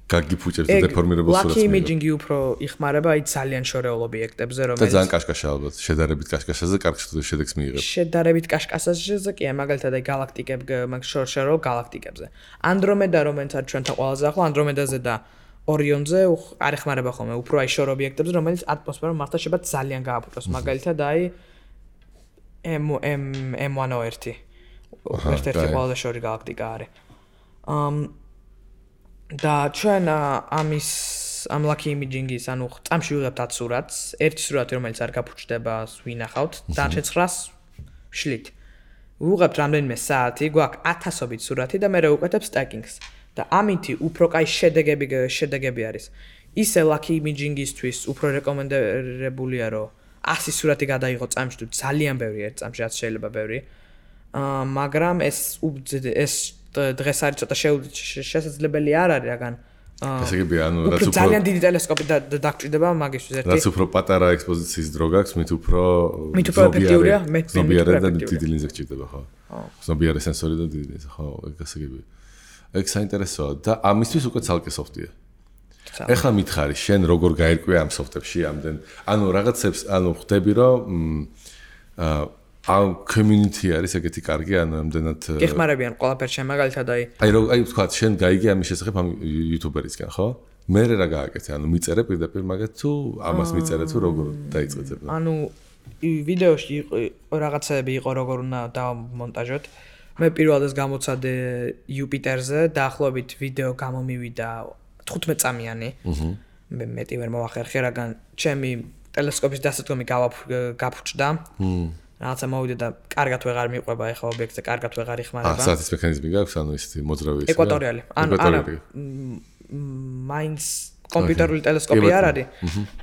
გაგიფუჭებს და დეფორმირებულ სურათს. Lucky imaging-ი უფრო იხმარება აი ძალიან შორეულ ობიექტებზე, რომელიც და ძალიან კაშკაშა ალბათ, შედარებით კაშკაშაზე კარგ შედეგს მიიღებს. შედარებით კაშკაშაზე კი, მაგალითად აი გალაქტიკებ, შორეულ გალაქტიკებზე. Andromeda რომელიც არის ჩვენთან ყველაზე ახლო, Andromeda-ზე და Orion-ზე არ ეხმარება ხოლმე, უფრო აი შორ ობიექტებზე, რომელიც ატმოსფერო მართლა შეიძლება ძალიან გააფუჭოს. მაგალითად აი M101 ერთ-ერთი ყველაზე შორი გალაქტიკა არის. და ჩვენ ამ lucky imaging-ის, ანუ წამში ვიღებთ 10 სურათს, ერთი სურათი რომელიც არ გაფუჭდება, ვინახავთ, დანარჩენ 9-ს ვშლით. ვიღებთ რამდენიმე საათი, გვაქვს 1000-ობით სურათი და მე ვუკეთებ სტაკინგს. და ამითი უფრო კაი შედეგები არის. ისე lucky imaging-ისთვის უფრო რეკომენდებულია, რომ 100 სურათი გადაიღო წამში თუ ძალიან ბევრი ერთ წამში, რაც შეიძლება ბევრი. მაგრამ ეს დღეს არის ცოტა შესაძლებელი არ არის, რაგან ესე იგი, ანუ რაც უფრო ძალიან დიდი ტელესკოპი დაგჭირდება მაგისთვის ერთი. რაც უფრო პატარა ექსპოზიციის დრო გაქვს, მით უფრო ეფექტიურია, ზომიარე და დიდი ლინზა გჭირდება, ხო? ზომიარე სენსორი და დიდი ლინზა, ხო, ესე იგი. ეგ საინტერესოა და ამისთვის უკვე ცალკე სოფტია. ეხლა მითხარი, შენ როგორ გაერკვე ამ სოფტებში ამდენ? ანუ რაღაცებს, ანუ ხვდები რომ ამ community არის ეგეთი კარგი, ანუ ამდენად გეხმარებიან ყველაფერს შენ მაგალითად აი თქვა, შენ გაიგე ამის შესახებ ამ YouTuber-ისგან, ხო? მე რა გააკეთე? ანუ მიწერე პირდაპირ მაგათ თუ ამას მიწერე თუ როგორ დაიწყეთ? ანუ ვიდეოში რაღაცები იყო როგორ უნდა დავმონტაჟოთ. მე პირველად გამოცადე Jupiter-ზე, დაახლოებით ვიდეო გამომივიდა 15 წამიანი. მე მეტი ვერ მოვახერხე, რადგან ჩემი ტელესკოპის დასადგომი გაფუჭდა. რაღაცა მოვიდა და კარგად ვეღარ მიყვება ეხლა ობიექტზე, კარგად ვეღარ იხმარება. საათის მექანიზმი გაქვს, ანუ ისეთი მოძრავი ის. ეკვატორიალი. ანუ მაინც კომპიუტერული ტელესკოპი არ არის,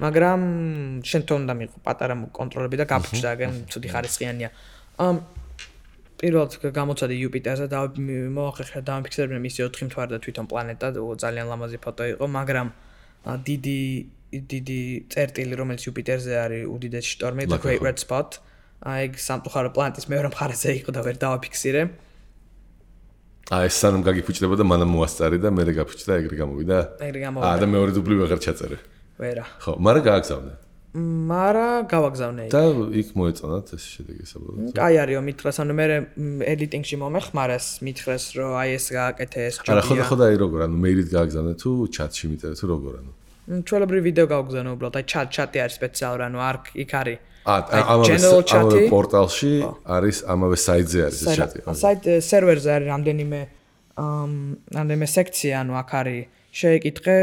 მაგრამ შენ თვითონ უნდა მიიღო პატარა კონტროლები და გაფუჭდა, აგენ ცუდი ხარისხიანია. პირველად გამოცადე Jupiter-ზე და მოვახერხე და დამიფიქსირებინე მისი 4 მთვარე და თვითონ პლანეტა, ძალიან ლამაზი ფოტო იყო, მაგრამ დიდი წერტილი, რომელიც Jupiter-ზე არის, უდიდესი შტორმი, The Great Red Spot. აი სამწუხარო პლანეტის მეორე მხარეზე იყო და ვერ დავაფიქსირე. ეს სანამ გაგიფუჭდება და მანამ მოასწარი და მე გაფუჭდა, ეგრე გამოვიდა. და მეორე დუბლი ვეღარ ჩაწერე. ვერა. ხო, მაგრამ გააგზავნე. გავაგზავნე. და იქ მოეწონათ ეს შედეგი საბოლოოდ. აი არისო მითხრეს, ანუ მე editing-ში მომეხმარეს, მითხრეს, რომ აი ეს გააკეთე ეს ჯობია. არა, ხო, აი როგორ, ანუ მეილით გააგზავნე თუ chat-ში მიწერე თუ როგორ, ანუ. ჩვეულებრივი ვიდეო გავაგზავნე უბრალოდ, აი chat-ი არის სპეციალური, ანუ იქ არის ამავე პორტალში არის, ამავე საიტზე არის ეს chat-ი. საიტ სერვერზე არის რამდენიმე სექცია, ანუ აქ არის შეეკითხე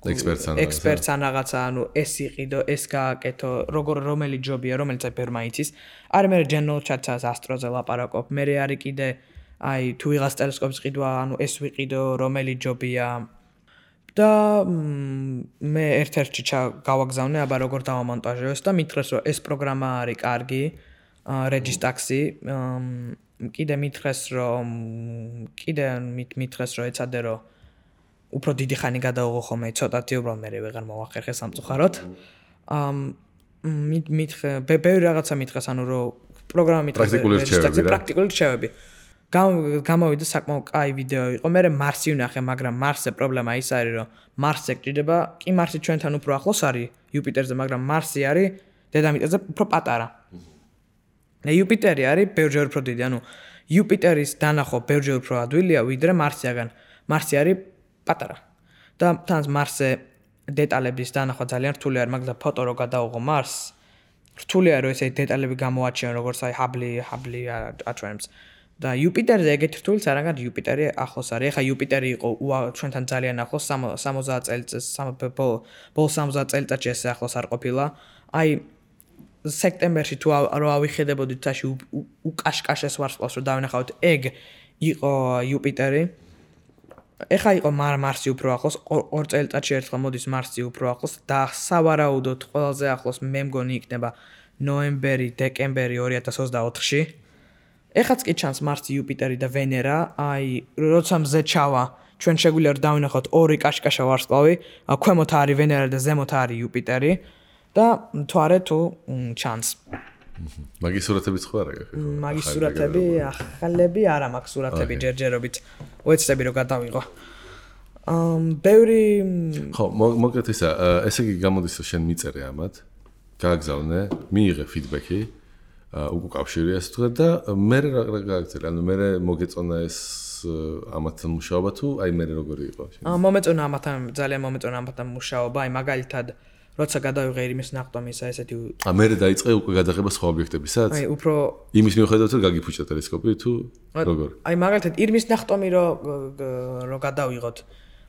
ექსპერტს ან რაღაცა, ანუ ეს იყიდო, ეს გააკეთო, რომელი ჯობია, რომელიც აი ბერმა იცის. არის მე general chat-ს ასტროზე ლაპარაკობ, მე არის კიდე აი თუ ვიღაც ტელესკოპის ყიდვა, ანუ ეს ვიყიდო, რომელი ჯობია და მე ერთ-ერთში გავაგზავნე, აბა როგორ დავამონტაჟო და მითხრეს რომ ეს პროგრამა არის კარგი, Registaxi, კიდე მითხრეს რომ ეცადე რომ უფრო დიდი ხანი გადაუღო ხოლმე ცოტათი უბრალოდ მე ვეღარ მოვახერხე სამწუხაროდ. ბევრი რაღაცა მითხრეს, ანუ რომ პროგრამა მითხრეს პრაქტიკული რჩევები. გამოვიდა საკმაოდ კაი ვიდეო იყო. მე მარსი ვნახე, მაგრამ მარსზე პრობლემა ის არის, რომ მარსზე გჭირდება, კი მარსი ჩვენთან უფრო ახლოს არის იუპიტერზე, მაგრამ მარსი არის დედამიწაზე უფრო პატარა. იუპიტერი არის ბევრჯერ უფრო დიდი, ანუ იუპიტერის დანახვა ბევრჯერ უფრო ადვილია, ვიდრე მარსიაგან. მარსი არის პატარა. და თან მარსზე დეტალების დანახვა ძალიან რთული არის, მაგრამ ფოტო რო გადაუღო მარსს, რთულია რომ ესე დეტალები გამოაჩიონ, როგორც აი ჰაბლი აჩვენებს. და იუპიტერზე ეგეთი რთულიც არ არის, იუპიტერი ახლოს არის. ეხა იუპიტერი იყო ჩვენთან ძალიან ახლოს 60 წელიწადს, ბოლო 60 წელიწადში ესე ახლოს არ ყოფილა. აი სექტემბერში თუ რო ავიხედებოდით თაში უკაშკაშეს ვარსკვლავს რომ დავინახავთ, ეგ იყო იუპიტერი. ეხა იყო მარსი უფრო ახლოს, 2 წელიწადში ერთხელ მოდის მარსი უფრო ახლოს და სავარაუდოდ ყველაზე ახლოს მე მგონი იქნება ნოემბერი, დეკემბერი 2024-ში. ეხაც კი ჩანს მარსი, იუპიტერი და ვენერა, აი როცა მზე ჩავა, ჩვენ შეგვიძლია რომ დავინახოთ ორი კაშკაშა ვარსკვლავი, ქვემოთ არის ვენერა და ზემოთ არის იუპიტერი და თვარე თუ ჩანს. მაგის სურათებიც ხო არა გაქვს? მაგის სურათები ახალები არა მაქვს სურათები ჯერჯერობით. ვეცდები რომ გადავიღო. ბევრი ხო, მოკლედ ესე იგი გამოდის რომ შენ მიწერე ამათ, გააგზავნე, მიიღე ფიდბექი, უკავშირე ასე თქვა და მე რა გააგზავნე, ანუ მე მოგეწონა ეს ამათთან მუშაობა თუ აი მე როგორი იყო? მომეწონა ამათთან, ძალიან მომეწონა ამათთან მუშაობა, აი მაგალითად როცა გადავიღე ირმის ნახტომისა ესეთი მე დაიწყე უკვე გადაღება სხვა ობიექტებისაც? აი უფრო იმის მიუხედავად რომ გაგიფუჭდა ტელესკოპი თუ როგორ? აი მაგალითად ირმის ნახტომი რო გადავიღოთ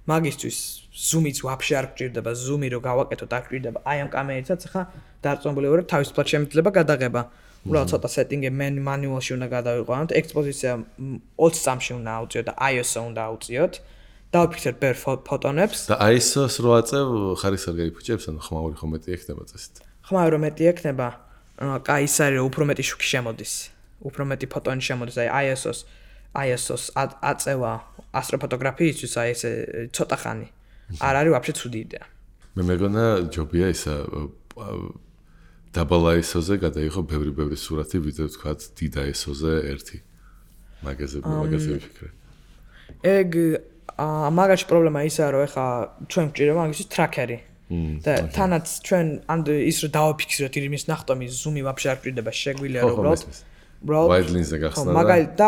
მაგისთვის ზუმიც ვაფშე არ გჭირდება, ზუმი რო გავაკეთოთ არ გჭირდება. აი ამ კამერითაც ხა დარწმუნებული ვარ თავისუფლად შემიძლება გადაღება. უბრალოდ ცოტა სეტინგი მანუალში უნდა გადავიყვანოთ, ექსპოზიცია 20 წამში უნდა ავწიოთ და ISO უნდა ავწიოთ. დავფიქრეთ ბევრ ფოტონებს. და ISO-ს რო აწევ, ხარისხი არ გაიფუჭებს, ანუ ხმაური ხომ მეტი ექნება წესით. ხმაური რომ მეტი ექნება, კაი ის არის რომ უფრო მეტი შუქი შემოდის. უფრო მეტი ფოტონი შემოდის, აი ISO-ს აწევა ასტროფოტოგრაფიისთვის, აი ესე ცოტა ხანი. არ არის ვაფშე ცუდი იდეა. მე მეგონა ჯობია ისა დაბალ ISO-ზე გადაიღო ბევრი სურათი, ვიდრე თქვათ დიდ ISO-ზე ერთი. მაგაზე ვიფიქრე. ეგ მაგაში პრობლემა ისაა რომ ეხა ჩვენ გვჭირდება მაგისთვის ტრაქერი. და თანაც ჩვენ ის რომ დავაფიქსიროთ ირმის ნახტომის ზუმი ვაფშე არ გვჭირდება, შეგვიძლია რომ უბრალოდ wide lens-ზე გახსნა და მაგალითად და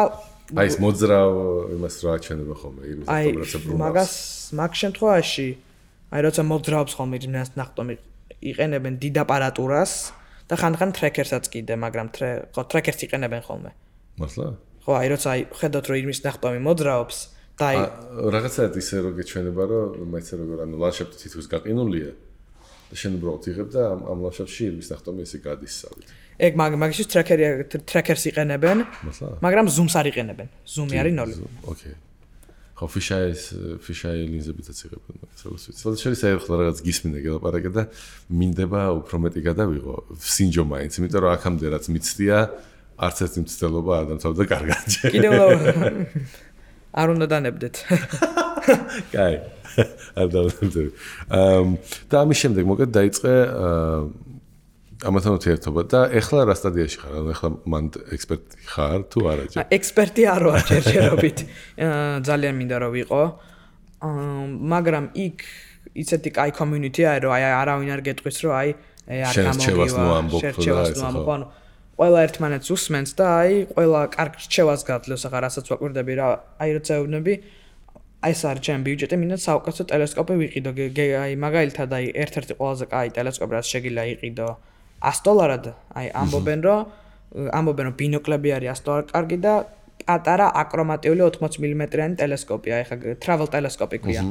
აი ეს მოძრავ იმას რა აჩვენება ხოლმე ირმის ნახტომს მაგას მაგ შემთხვევაში აი როცა მოძრაობს ხოლმე ირმის ნახტომი იყენებენ დიდ აპარატურას და ხან ტრეკერსაც კიდე, მაგრამ ტრეკერს იყენებენ ხოლმე. მართლა? ხო, აი როცა ხედავთ რომ ირმის ნახტომი მოძრაობს და აი რაღაცაა ისე რომ გეჩვენება რომ მაინც როგორ ანუ ლანდშაფტი თითქოს გაყინულია და შენ უბრალოდ იღებ და ამ ლანდშაფტში ირმის ნახტომი ესე გადის სავით. ეგ მაგისთვის ტრეკერს იყენებენ, მაგრამ ზუმს არ იყენებენ. ზუმი არის 0. ოკეი. ხო, ფიშაი ლინზებითაც იღებენ მაგას როგორც ვიცი. სადაც შეიძლება ახლა რაღაც გისმინე გელაპარაკე და მინდება უფრო მეტი გადავიღო სინჯო მაინც, იმიტომ რომ აქამდე რაც მიცდია, არც ერთი მცდელობა არ დამთავრდა კარგად. კიდევ არ უნდა დანებდეთ. კაი. არ დავდებდი. და ამის შემდეგ მოკეთ დაიწყე ამათთან ურთიერთობა და ეხლა რა სტადიაში ხარ? ანუ ეხლა მან ექსპერტი ხარ თუ არა? ექსპერტი არ ვარ ჯერჯერობით. ძალიან მინდა რომ ვიყო. მაგრამ იქ ისეთი კაი community არის რომ აი არავინ არ გეტყვის რომ აი არ გამოგივა. შერჩევას ყველა ერთმანეთს უსმენს და აი ყველა კარგ რჩევას გაძლევს, ახლა რასაც ვაკვირდები რა, აი როცა ეუბნები, აი ეს არის ჩემი ბიუჯეტი, მინდა საუკეთესო ტელესკოპი ვიყიდო, აი მაგალითად აი ერთ-ერთი ყველაზე კაი ტელესკოპი რაც შეგიძლია იყიდო $100-ად, აი ამბობენ რომ ბინოკლები არის $100 კარგი და პატარა აკრომატიული 80 მმ-იანი ტელესკოპი, აი ხა travel ტელესკოპი ქვია.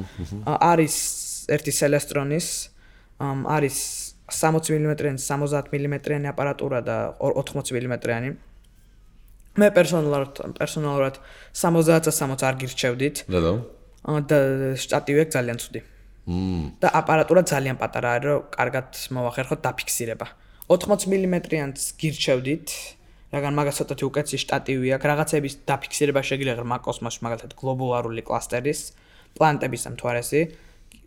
არის ერთი Celestronis, არის 60 მმ-იანი, 70 მმ-იანი აპარატურა და 80 მმ-იანი. მე პერსონალურად 60-60 არ გირჩევდით. და შტატივი აქვს ძალიან ცუდი. და აპარატურა ძალიან პატარა არის, რომ კარგად მოვახერხოთ დაფიქსირება. 80 მმ-იანს გირჩევდით, რადგან მაგას ცოტათი უკეთესი შტატივი აქვს, რაღაცების დაფიქსირება შეგიძლია ღრმა კოსმოსში, მაგალითად გლობულარული კლასტერის, პლანეტების ამთვარესი,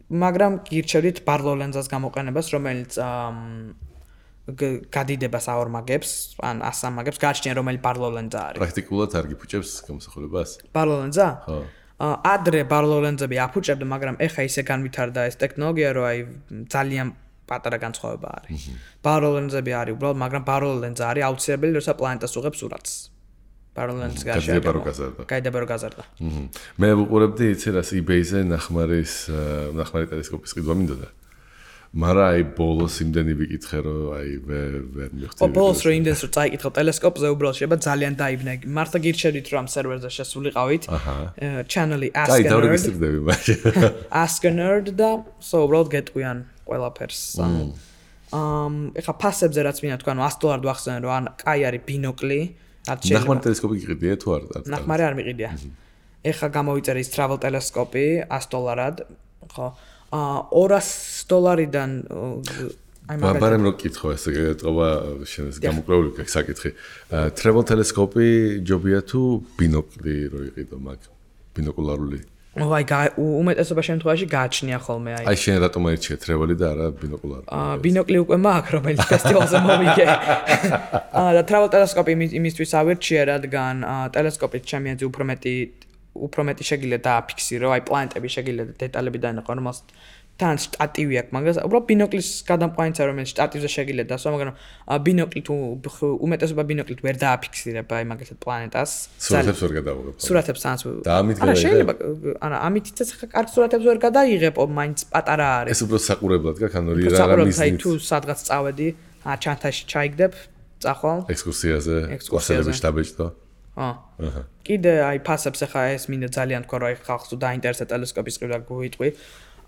მაგრამ გირჩევდით Barlow ლენზას გამოყენებას, რომელიც გადიდებას აორმაგებს, ან ასამაგებს, გააჩნია რომელი Barlow ლენზა არის. პრაქტიკულად არ გიფუჭებს გამოსახულებას? Barlow ლენზა? ხო. ადრე Barlow ლენზები აფუჭებდა, მაგრამ ეხა ისე განვითარდა ეს ტექნოლოგია, რომ აი ძალიან პატარა განსხვავება არის. Barlow ლენზები არის უბრალოდ, მაგრამ Barlow ლენზა არის აუცილებელი, როცა პლანეტას უღებს სურათს. Barlow ლენზის გარშემო. გაიდება რომ გაზარდა. მე ვუყურებდი იცი რას eBay-ზე ნახმარი ტელესკოპის ყიდვა მინდოდა. მაგრამ აი ბოლოს იმდენი ვიკითხე რომ აი ვერ მივხვდი. ბოლოს რომ იმდენს რომ წაიკითხო ტელესკოპზე უბრალოდ შეიძლება ძალიან დაიბნე. მართლა გირჩევდით რომ ამ სერვერზე შესულიყავით. channel-ი Ask a Nerd. აი დავრეგისტრირდები მაშინ. Ask a Nerd და უბრალოდ გეტყვიან ყველაფერს. ეხა ფასებზე რაც მინდა თქვა, $100 ვახსენე რომ ან კაი არის ბინოკლი. ნახმარი ტელესკოპი გიყიდია თუ არ? ნახმარი არ მიყიდია. ეხა გამოვიწერე ის travel ტელესკოპი $100-ად, ხო? $200-დან აი მაგრამ რო კითხო ესე გეტყობა შენს გამოკვლეული საკითხი. travel ტელესკოპი ჯობია თუ ბინოკლი რო იყიდო მაგ ბინოკულარული? აი უმეტესობა შემთხვევაში გააჩნია ხოლმე აი. აი შენ რატომ აირჩიე travel-ი და არა ბინოკულარი? ბინოკლი უკვე მაქვს, რომელიც ფესტივალზე მოვიგე. და travel ტელესკოპი იმისთვის ავირჩიე, რადგან ტელესკოპით ჩემი აზრით უფრო მეტი შეგიძლია დააფიქსირო, აი პლანეტები შეგიძლია დეტალები დაინახო, რომელსაც თან შტატივი აქვს, მაგას უბრალოდ ბინოკლის გადამყვანიცა, რომელიც შტატივზე შეგიძლია დასვა, მაგრამ ბინოკლი თუ უმეტესობა ბინოკლით ვერ დააფიქსირებ, აი მაგალითად პლანეტას. სურათებს ვერ გადავიღებ. სურათებს თანაც. და ამით არა შეიძლება, არა ამითიც ახლა კარგ სურათებს ვერ გადაიღებ, მაინც პატარა არის. ეს უბრალოდ საყურებლად გაქვს, ანუ რა მიზნით. თუ სადღაც წავედი, ჩანთაში ჩაიგდებ, წახვალ. ექსკურსიაზე, კლასელები შტაბეჭდო. კიდე აი ფასებს ახლა ეს მინდა ძალიან თქვა, რომ აი ხალხს თუ დაინტერესდა ტელესკოპის ყიდვა გვიტყვი.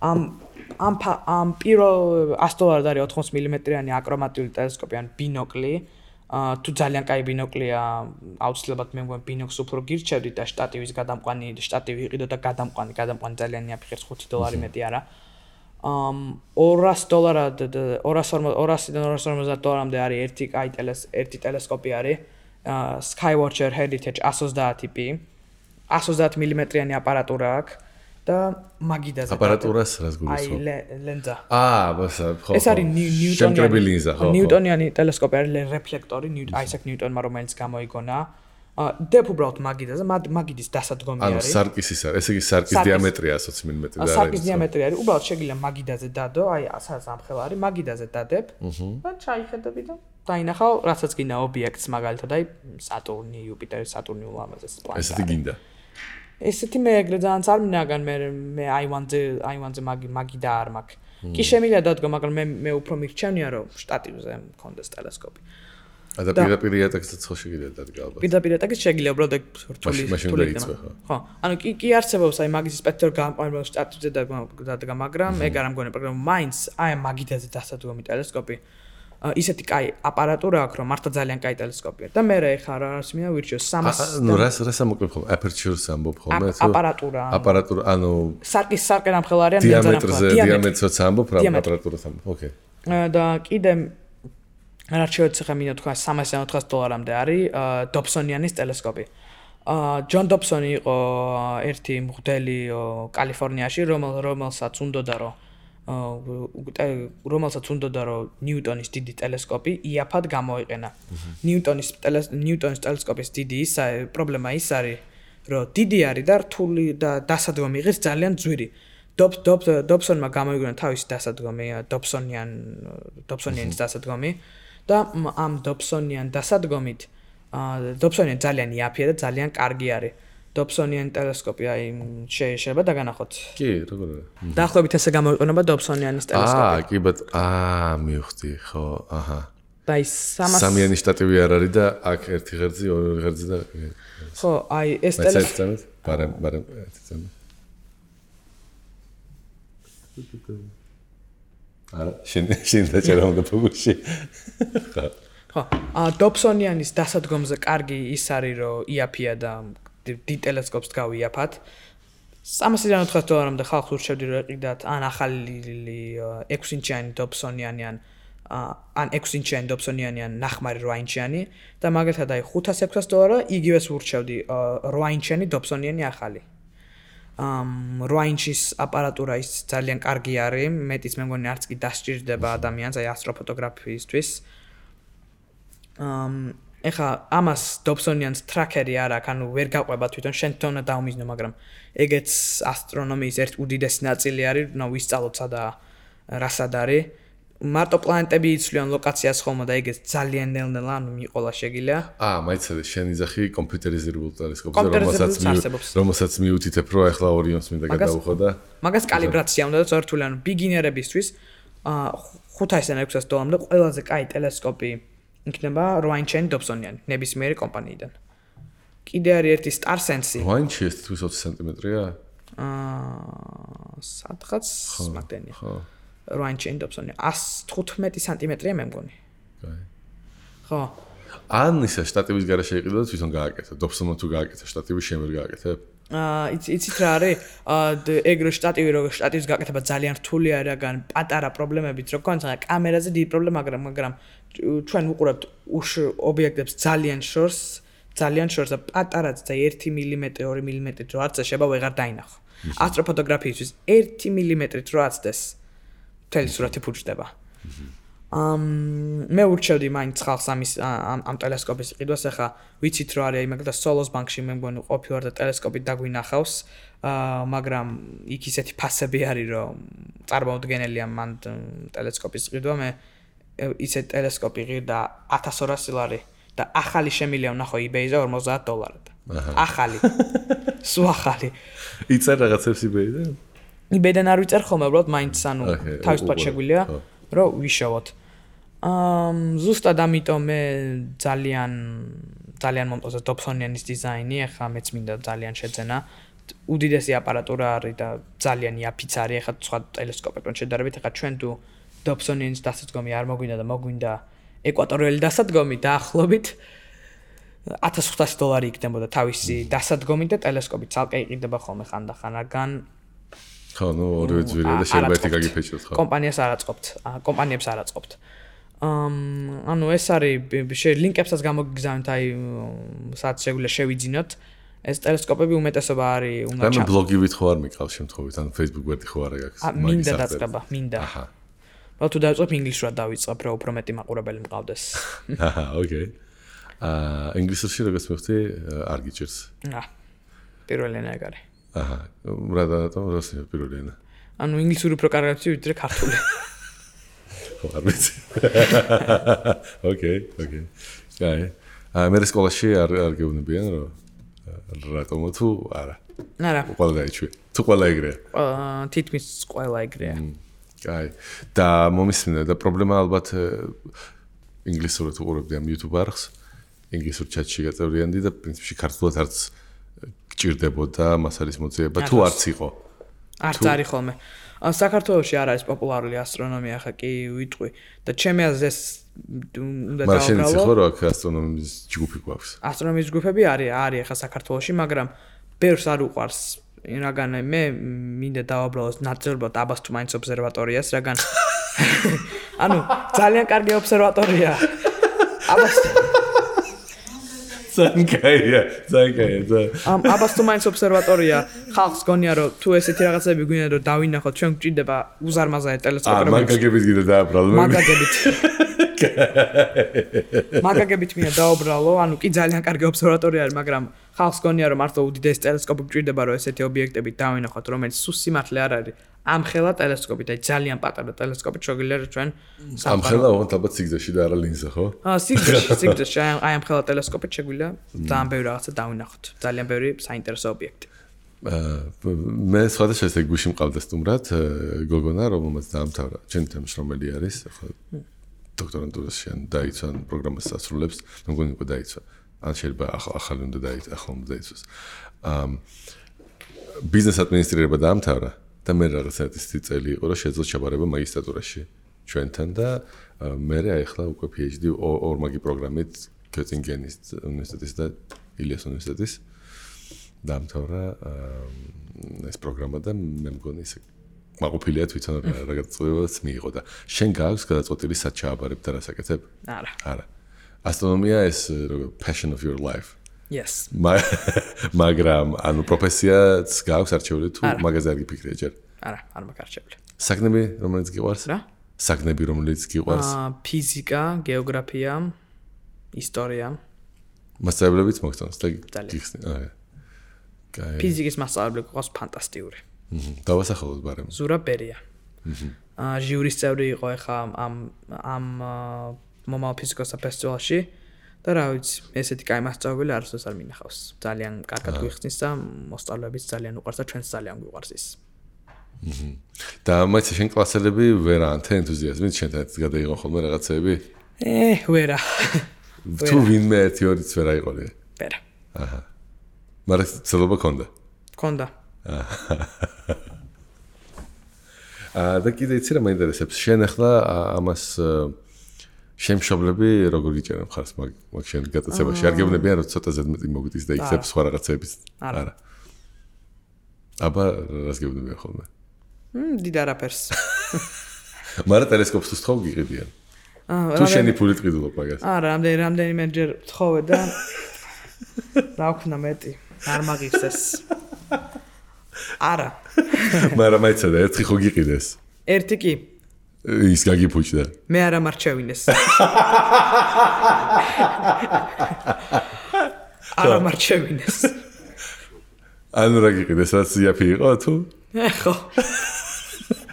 ამ პირველ $100 არის 80 მმ-იანი აკრომატული ტელესკოპი ან ბინოკლი. თუ ძალიან კაი ბინოკლია, აუცილებლად მე მგონი ბინოკლს უფრო გირჩევდით და შტატივის გადამყვანი, შტატივი იყიდო და გადამყვანი ძალიან იაფიხებს $5 მეტი არა. $200-დან $250-მდე არის ერთი ტელესკოპი არის. Skywatcher Heritage 130 ტიპი. 130 მმ-იანი აპარატურა აქვს და მაგიდაზე. აპარატურას რას გულისხმობ? აი ლენზა. ბასა, ხო. ეს არის შემკრები ლინზა, ხო. ნიუტონიანი ტელესკოპი არის რეფლექტორი, აისაკ ნიუტონმა რომელიც გამოიგონა. დებ უბრალოდ მაგიდაზე, მაგიდის დასადგომი არის. სარკის ის არის, ესე იგი სარკის დიამეტრია 120 მმ და არის. სარკის დიამეტრი არის, უბრალოდ შეგიძლია მაგიდაზე დადო, აი სადაც ამხელა არის, მაგიდაზე დადებ და ჩაიხედები და დაინახავ, რასაც გინდა ობიექტს, მაგალითად აი სატურნი, იუპიტერი, სატურნი ულამაზეს პლანეტა. ესეთი გინდა. ესეთი მე ეგრე ძალიან არ მინაგან მე აივანზე მაგიდა არ მაქვს. კი შემიძლია დადგო, მაგრამ მე უფრო მირჩენია რომ შტატივზე მქონდეს ტელესკოპი. და პირდაპირ იატაკსაც ხო შეგიძლია დადგა ალბათ. პირდაპირ იატაკიც შეგიძლია უბრალოდ ეგ რთული დაიწყო ხო. ხო, ანუ კი არსებობს აი მაგის სპექტრ გამყარება შტატივზე დადგა, მაგრამ ეგ არ ამგონი პროგრამა მაინც აი მაგიდაზე დასადგომი ტელესკოპი. ისეთი კაი აპარატურა აქვს, რომ მართლა ძალიან კაი ტელესკოპია. და მე ხა რას მინდა ვირჩიო 300. ნუ რას ამოკლებ ხოლმე? Aperture-ს ამბობ ხოლმე თუ? აპარატურა, ანუ სარკე ნამხელა არის დიამეტრს ამბობ, რა აპარატურას ამბობ. ოკეი. და კიდე არჩევთ ხა მინდა თქვა $300-400-მდე არის Dobsonianis ტელესკოპი. ჯონ დობსონი იყო ერთი მღვდელი კალიფორნიაში, რომელსაც უნდოდა რომ ნიუტონის დიდი ტელესკოპი იაფად გამოიყენა. ნიუტონის ტელესკოპის დიდი პრობლემა ის არის, რომ დიდი არის და რთული და დასადგომი იღებს ძალიან ძვირი. Dobsonმა გამოიგონა თავისი დასადგომი, Dobsonianis დასადგომი და ამ Dobsonian დასადგომით Dobsonian ძალიან იაფია და ძალიან კარგი არის. Dobsonian ტელესკოპი აი შეიძლება დაგანახოთ. კი, როგორ არა. დაახლოებით ესე გამოიყენება Dobsonianis ტელესკოპი. კი, მივხვდი, ხო, აჰა. და ის სამიანი შტატივი არ არის და აქ ერთი ღერძი, ორი ღერძი და ხო, აი ეს ტელესკოპი. მაგრამ ერთი წამი. არა, შენ დაჭერა უნდა ფოკუსში. ხო, Dobsonian-ის დასადგომზე კარგი ის არის, რომ იაფია და დიდ ტელესკოპს გავიაფათ. $390-მდე ხალხს ურჩევდი რომ ეყიდათ ან ახალი 6-ინჩიანი Dobsonian-ი ან 6-ინჩიანი Dobsonian-ი ან ნახმარი 8-ინჩიანი და მაგალითად აი $500-600 იგივეს ურჩევდი 8-ინჩიანი Dobsonian-ი ახალი. 8-ინჩის აპარატურა ის ძალიან კარგი არის, მეტიც მე მგონი არც კი დასჭირდება ადამიანს აი ასტროფოტოგრაფიისთვის. ეხა ამას Dobsonian-ს ტრაქერი არ აქვს, ანუ ვერ გაყვება თვითონ შენ თვითონ უნდა დაუმიზნო, მაგრამ ეგეც ასტრონომიის ერთ უდიდესი ნაწილი არის, ნუ ვისწავლოთ სადა რასად არის. მარტო პლანეტები იცვლიან ლოკაციას ხოლმე და ეგეც ძალიან ნელ-ნელა ანუ მიყოლა შეგიძლია. მაიცადე შენ იძახი კომპიუტერიზებულ ტელესკოპზე, რომელსაც მიუთითებ რომ ახლა ორიონს მინდა გადავუხო და მაგას კალიბრაცია უნდა და წორთული ანუ ბიგინერებისთვის $500-600-მდე ყველაზე კაი ტელესკოპი იქნება 8-ინჩიანი Dobsonian-ი ნებისმიერი კომპანიიდან. კიდე არის ერთი StarSense-ი. 8-ინჩი ეს თვითონ 20 სანტიმეტრია? სადღაც მაგდენია. 8-ინჩიანი Dobsonian 115 სანტიმეტრია მე მგონი. კაი. ხო. ან ისა შტატივის გარეშე იყიდო და თვითონ გააკეთე. Dobsonian თუ გააკეთე შტატივის შენ ვერ გააკეთებ? იცით რა არის? ეგრე შტატივი რო შტატივის გაკეთება ძალიან რთული არის, რაგან პატარა პრობლემებით რო გქონდა კამერაზე დიდი პრობლემა, მაგრამ ჩვენ ვუყურებთ ობიექტებს ძალიან შორს და პატარაც და 1 მმ, 2 მმ რო არც შეება ვეღარ დაინახო. ასტროფოტოგრაფიისთვის 1 მმ რო აცდეს მთელი სურათი ფუჭდება. მე ურჩევდი მაინც ხალხს ამ ტელესკოპის ყიდვას, ახლა ვიცით რომ არის მაგალითად Solos Bank-ში მე მგონი ყოფილვარ და ტელესკოპით დაგვინახავს, მაგრამ იქ ისეთი ფასები არის რომ წარმოუდგენელია მან ტელესკოპის ყიდვა, მე ისეთ ტელესკოპი ღირდა $1200 და ახალი შემილია ვნახო eBay-ზე $50. ახალი. სულ ახალი. იცარ რაღაცებს eBay-დან? eBay-დან არ ვიწერ ხოლმე, უბრალოდ მაინც ანუ თავისუფლად შეგვიძლია რომ ვიშოვოთ. ზუსტად ამიტომ მე ძალიან მომწონს Dobsonian-ის დიზაინი, ახლა მეც მინდა ძალიან შეძენა. უდიდესი აპარატურა არის და ძალიან იაფიც არის, ახლა სხვა ტელესკოპებთან შედარებით, ახლა ჩვენ თუ Dobsonian-ის დასადგომი არ მოგვინდა და მოგვინდა ეკვატორიელი დასადგომი დაახლოებით $1500 იქნებოდა თავისი დასადგომი და ტელესკოპი ცალკე იყიდება ხოლმე ხანდახან, რაგან ხო, ნუ ორივე ძვირია და შეიძლება ერთი გაგიფეჭოთ ხო. კომპანიებს არ აწყობთ. ანუ ეს არის ლინკებსაც გამოგიგზავნით, აი სადაც შეგვიძლია შევიძინოთ. ეს ტელესკოპები უმეტესობა არის უნდა ბლოგივით ხო არ მიყავს შემთხვევით, ან Facebook ვერტი ხო არა გაქვს. მინდა დაწყება, მინდა. აჰა. თუ დავიწყებ ინგლისურად დავიწყებ, რომ უფრო მეტი მაყურებელი მყავდეს. აჰა, ოკეი. ინგლისურში როგორც მივხვდი, არ გიჭირს. პირველი ენა ეგ არის. აჰა, რატომ რუსი პირველი ენა? ანუ ინგლისური უფრო კარგად ვიცი, ვიდრე ქართული. ხო, არ ვიცი. ოკეი. კაი. მე სკოლაში არ გეუბნებიან, რომ რატომ თუ არა. არა. ყველა დაიჩვი. თუ ყველა ეგრეა. თითქმის ყველა ეგრეა. კაი. და მომისმინე და პრობლემა ალბათ ინგლისურად უყურებდი ამ YouTube არხს. ინგლისურ ჩატში გაწევრიანდი და პრინციპში ქართულად არც გჭირდებოდა მას არის მოძიება თუ არც იყო. არც არის ხოლმე. საქართველოში არ არის პოპულარული ასტრონომია, ხა კი ვიტყვი და ჩემი აზრით უნდა დავაბრალო. მაგრამ შენ ხო რა აქ ასტრონომიის ჯგუფი გვაქვს? ასტრონომიის ჯგუფები არის ხა საქართველოში, მაგრამ ბევრს არ უყვარს. რაგან მე მინდა დავაბრალოს ნაწილობრივად აბასთუმანის ობსერვატორიას, რაგან ანუ ძალიან კარგი ობსერვატორია. ზანკაია. აბასთუმანის ობსერვატორია ხალხს გონია რომ თუ ესეთი რაღაცები გვინდა რომ დავინახოთ, ჩვენ გვჭირდება უზარმაზარი ტელესკოპები. მაგაგებით გინდა დააბრალო. მაგაგებით მინდა დავაბრალო, ანუ კი ძალიან კარგი ობსერვატორია არის, მაგრამ ხალხს გონია რომ მართლა უდიდესი ტელესკოპი გვჭირდება რომ ესეთი ობიექტები დავინახოთ, რომელიც სულ სიმართლე არ არის. ამხელა ტელესკოპი და ძალიან პატარა ტელესკოპი შეგვიძლია რომ ჩვენ ამხელა ოღონდ ალბათ სიგრძეში და არა ლინზა ხო? სიგრძეში აი ამხელა ტელესკოპი შეგვიძლია ძალიან ბევრი რაღაცა დავინახოთ. ძალიან ბევრი საინტერესო ობიექტი. მე სხვადასხვა ესე გუში მყავდა სტუმრად გოგონა, რომელმაც დაამთავრა ჩემთან მშრომელი არის, ხო დოქტორანტურაში ან დაიცვა პროგრამას ასრულებს, მე მგონი უკვე დაიცვა. ან შეიძლება ახალი უნდა დაიცვას. ბიზნეს ადმინისტრირება დაამთავრა და მე რაღაცა წელი იყო რომ შეძლო ჩაბარება მაგისტრატურაში. ჩვენთან და მე აი ახლა უკვე PhD ორმაგი პროგრამით გეტინგენის უნივერსიტეტის და ილიას უნივერსიტეტის დამთავრა ეს პროგრამა და მე მგონი ისე მაყოფილია თვითონ რა გადაწყვეტილებაც მიიღო და შენ გაქვს გადაწყვეტილი სად ჩააბარებ და რა საკეთებ? არა. ასტრონომია ეს passion of your life. Yes. მაგრამ ანუ პროფესიაც გაქვს არჩეული თუ მაგაზე არ გიფიქრია ჯერ? არა, არ მაქვს არჩეული. საგნები რომელიც გიყვარს? რა? საგნები რომელიც გიყვარს? ფიზიკა, გეოგრაფია, ისტორია. მასწავლებლებიც მოგწონს და გიხსნი. კაი. ფიზიკის მასწავლებელი ყავს ფანტასტიკური. დავასახელოთ ბარემ. ზურა ბერია. ჟიურის წევრი იყო ახლა ამ მომავალ ფიზიკოსთა ფესტივალში და რა ვიცი, ესეთი კაი მასწავლებელი არასდროს არ მინახავს. ძალიან კარგად გვიხსნის და მოსწავლეებიც ძალიან უყვარს და ჩვენც ძალიან გვიყვარს ის. და მაინც შენ კლასელები ვერანთ ენთუზიაზმით შენთან გადაიღო ხოლმე რაღაცეები? ვერა. თუ ვინმე ერთი ორიც ვერ აიყოლე? ვერა. აჰა. მაგრამ ცდილობა ქონდა? ქონდა. და კიდე იცი რა მაინტერესებს შენ ახლა ამას შემშობლები როგორ იჭერენ მხარს მაგ შენ გატაცებაში არ გეუბნებიან რომ ცოტა ზედმეტი მოგდის და იქცებ სხვა რაღაცების არა აბა რას გეუბნებიან ხოლმე დიდ არაფერს მაგრამ ტელესკოპს თხოვ გიყიდიან თუ შენი ფული ტყიდულობ მაგას არა რამდენიმეჯერ თხოვე და რა ვქნა მეტი არ მაგიხსეს არა მაგრამ აიცა და ერთი ხო გიყიდეს ერთი კი ის გაგიფუჭდა მე არ ამარჩევინეს არ ამარჩევინეს ანუ რა გიყიდეს რაც იაფი იყო თუ ხო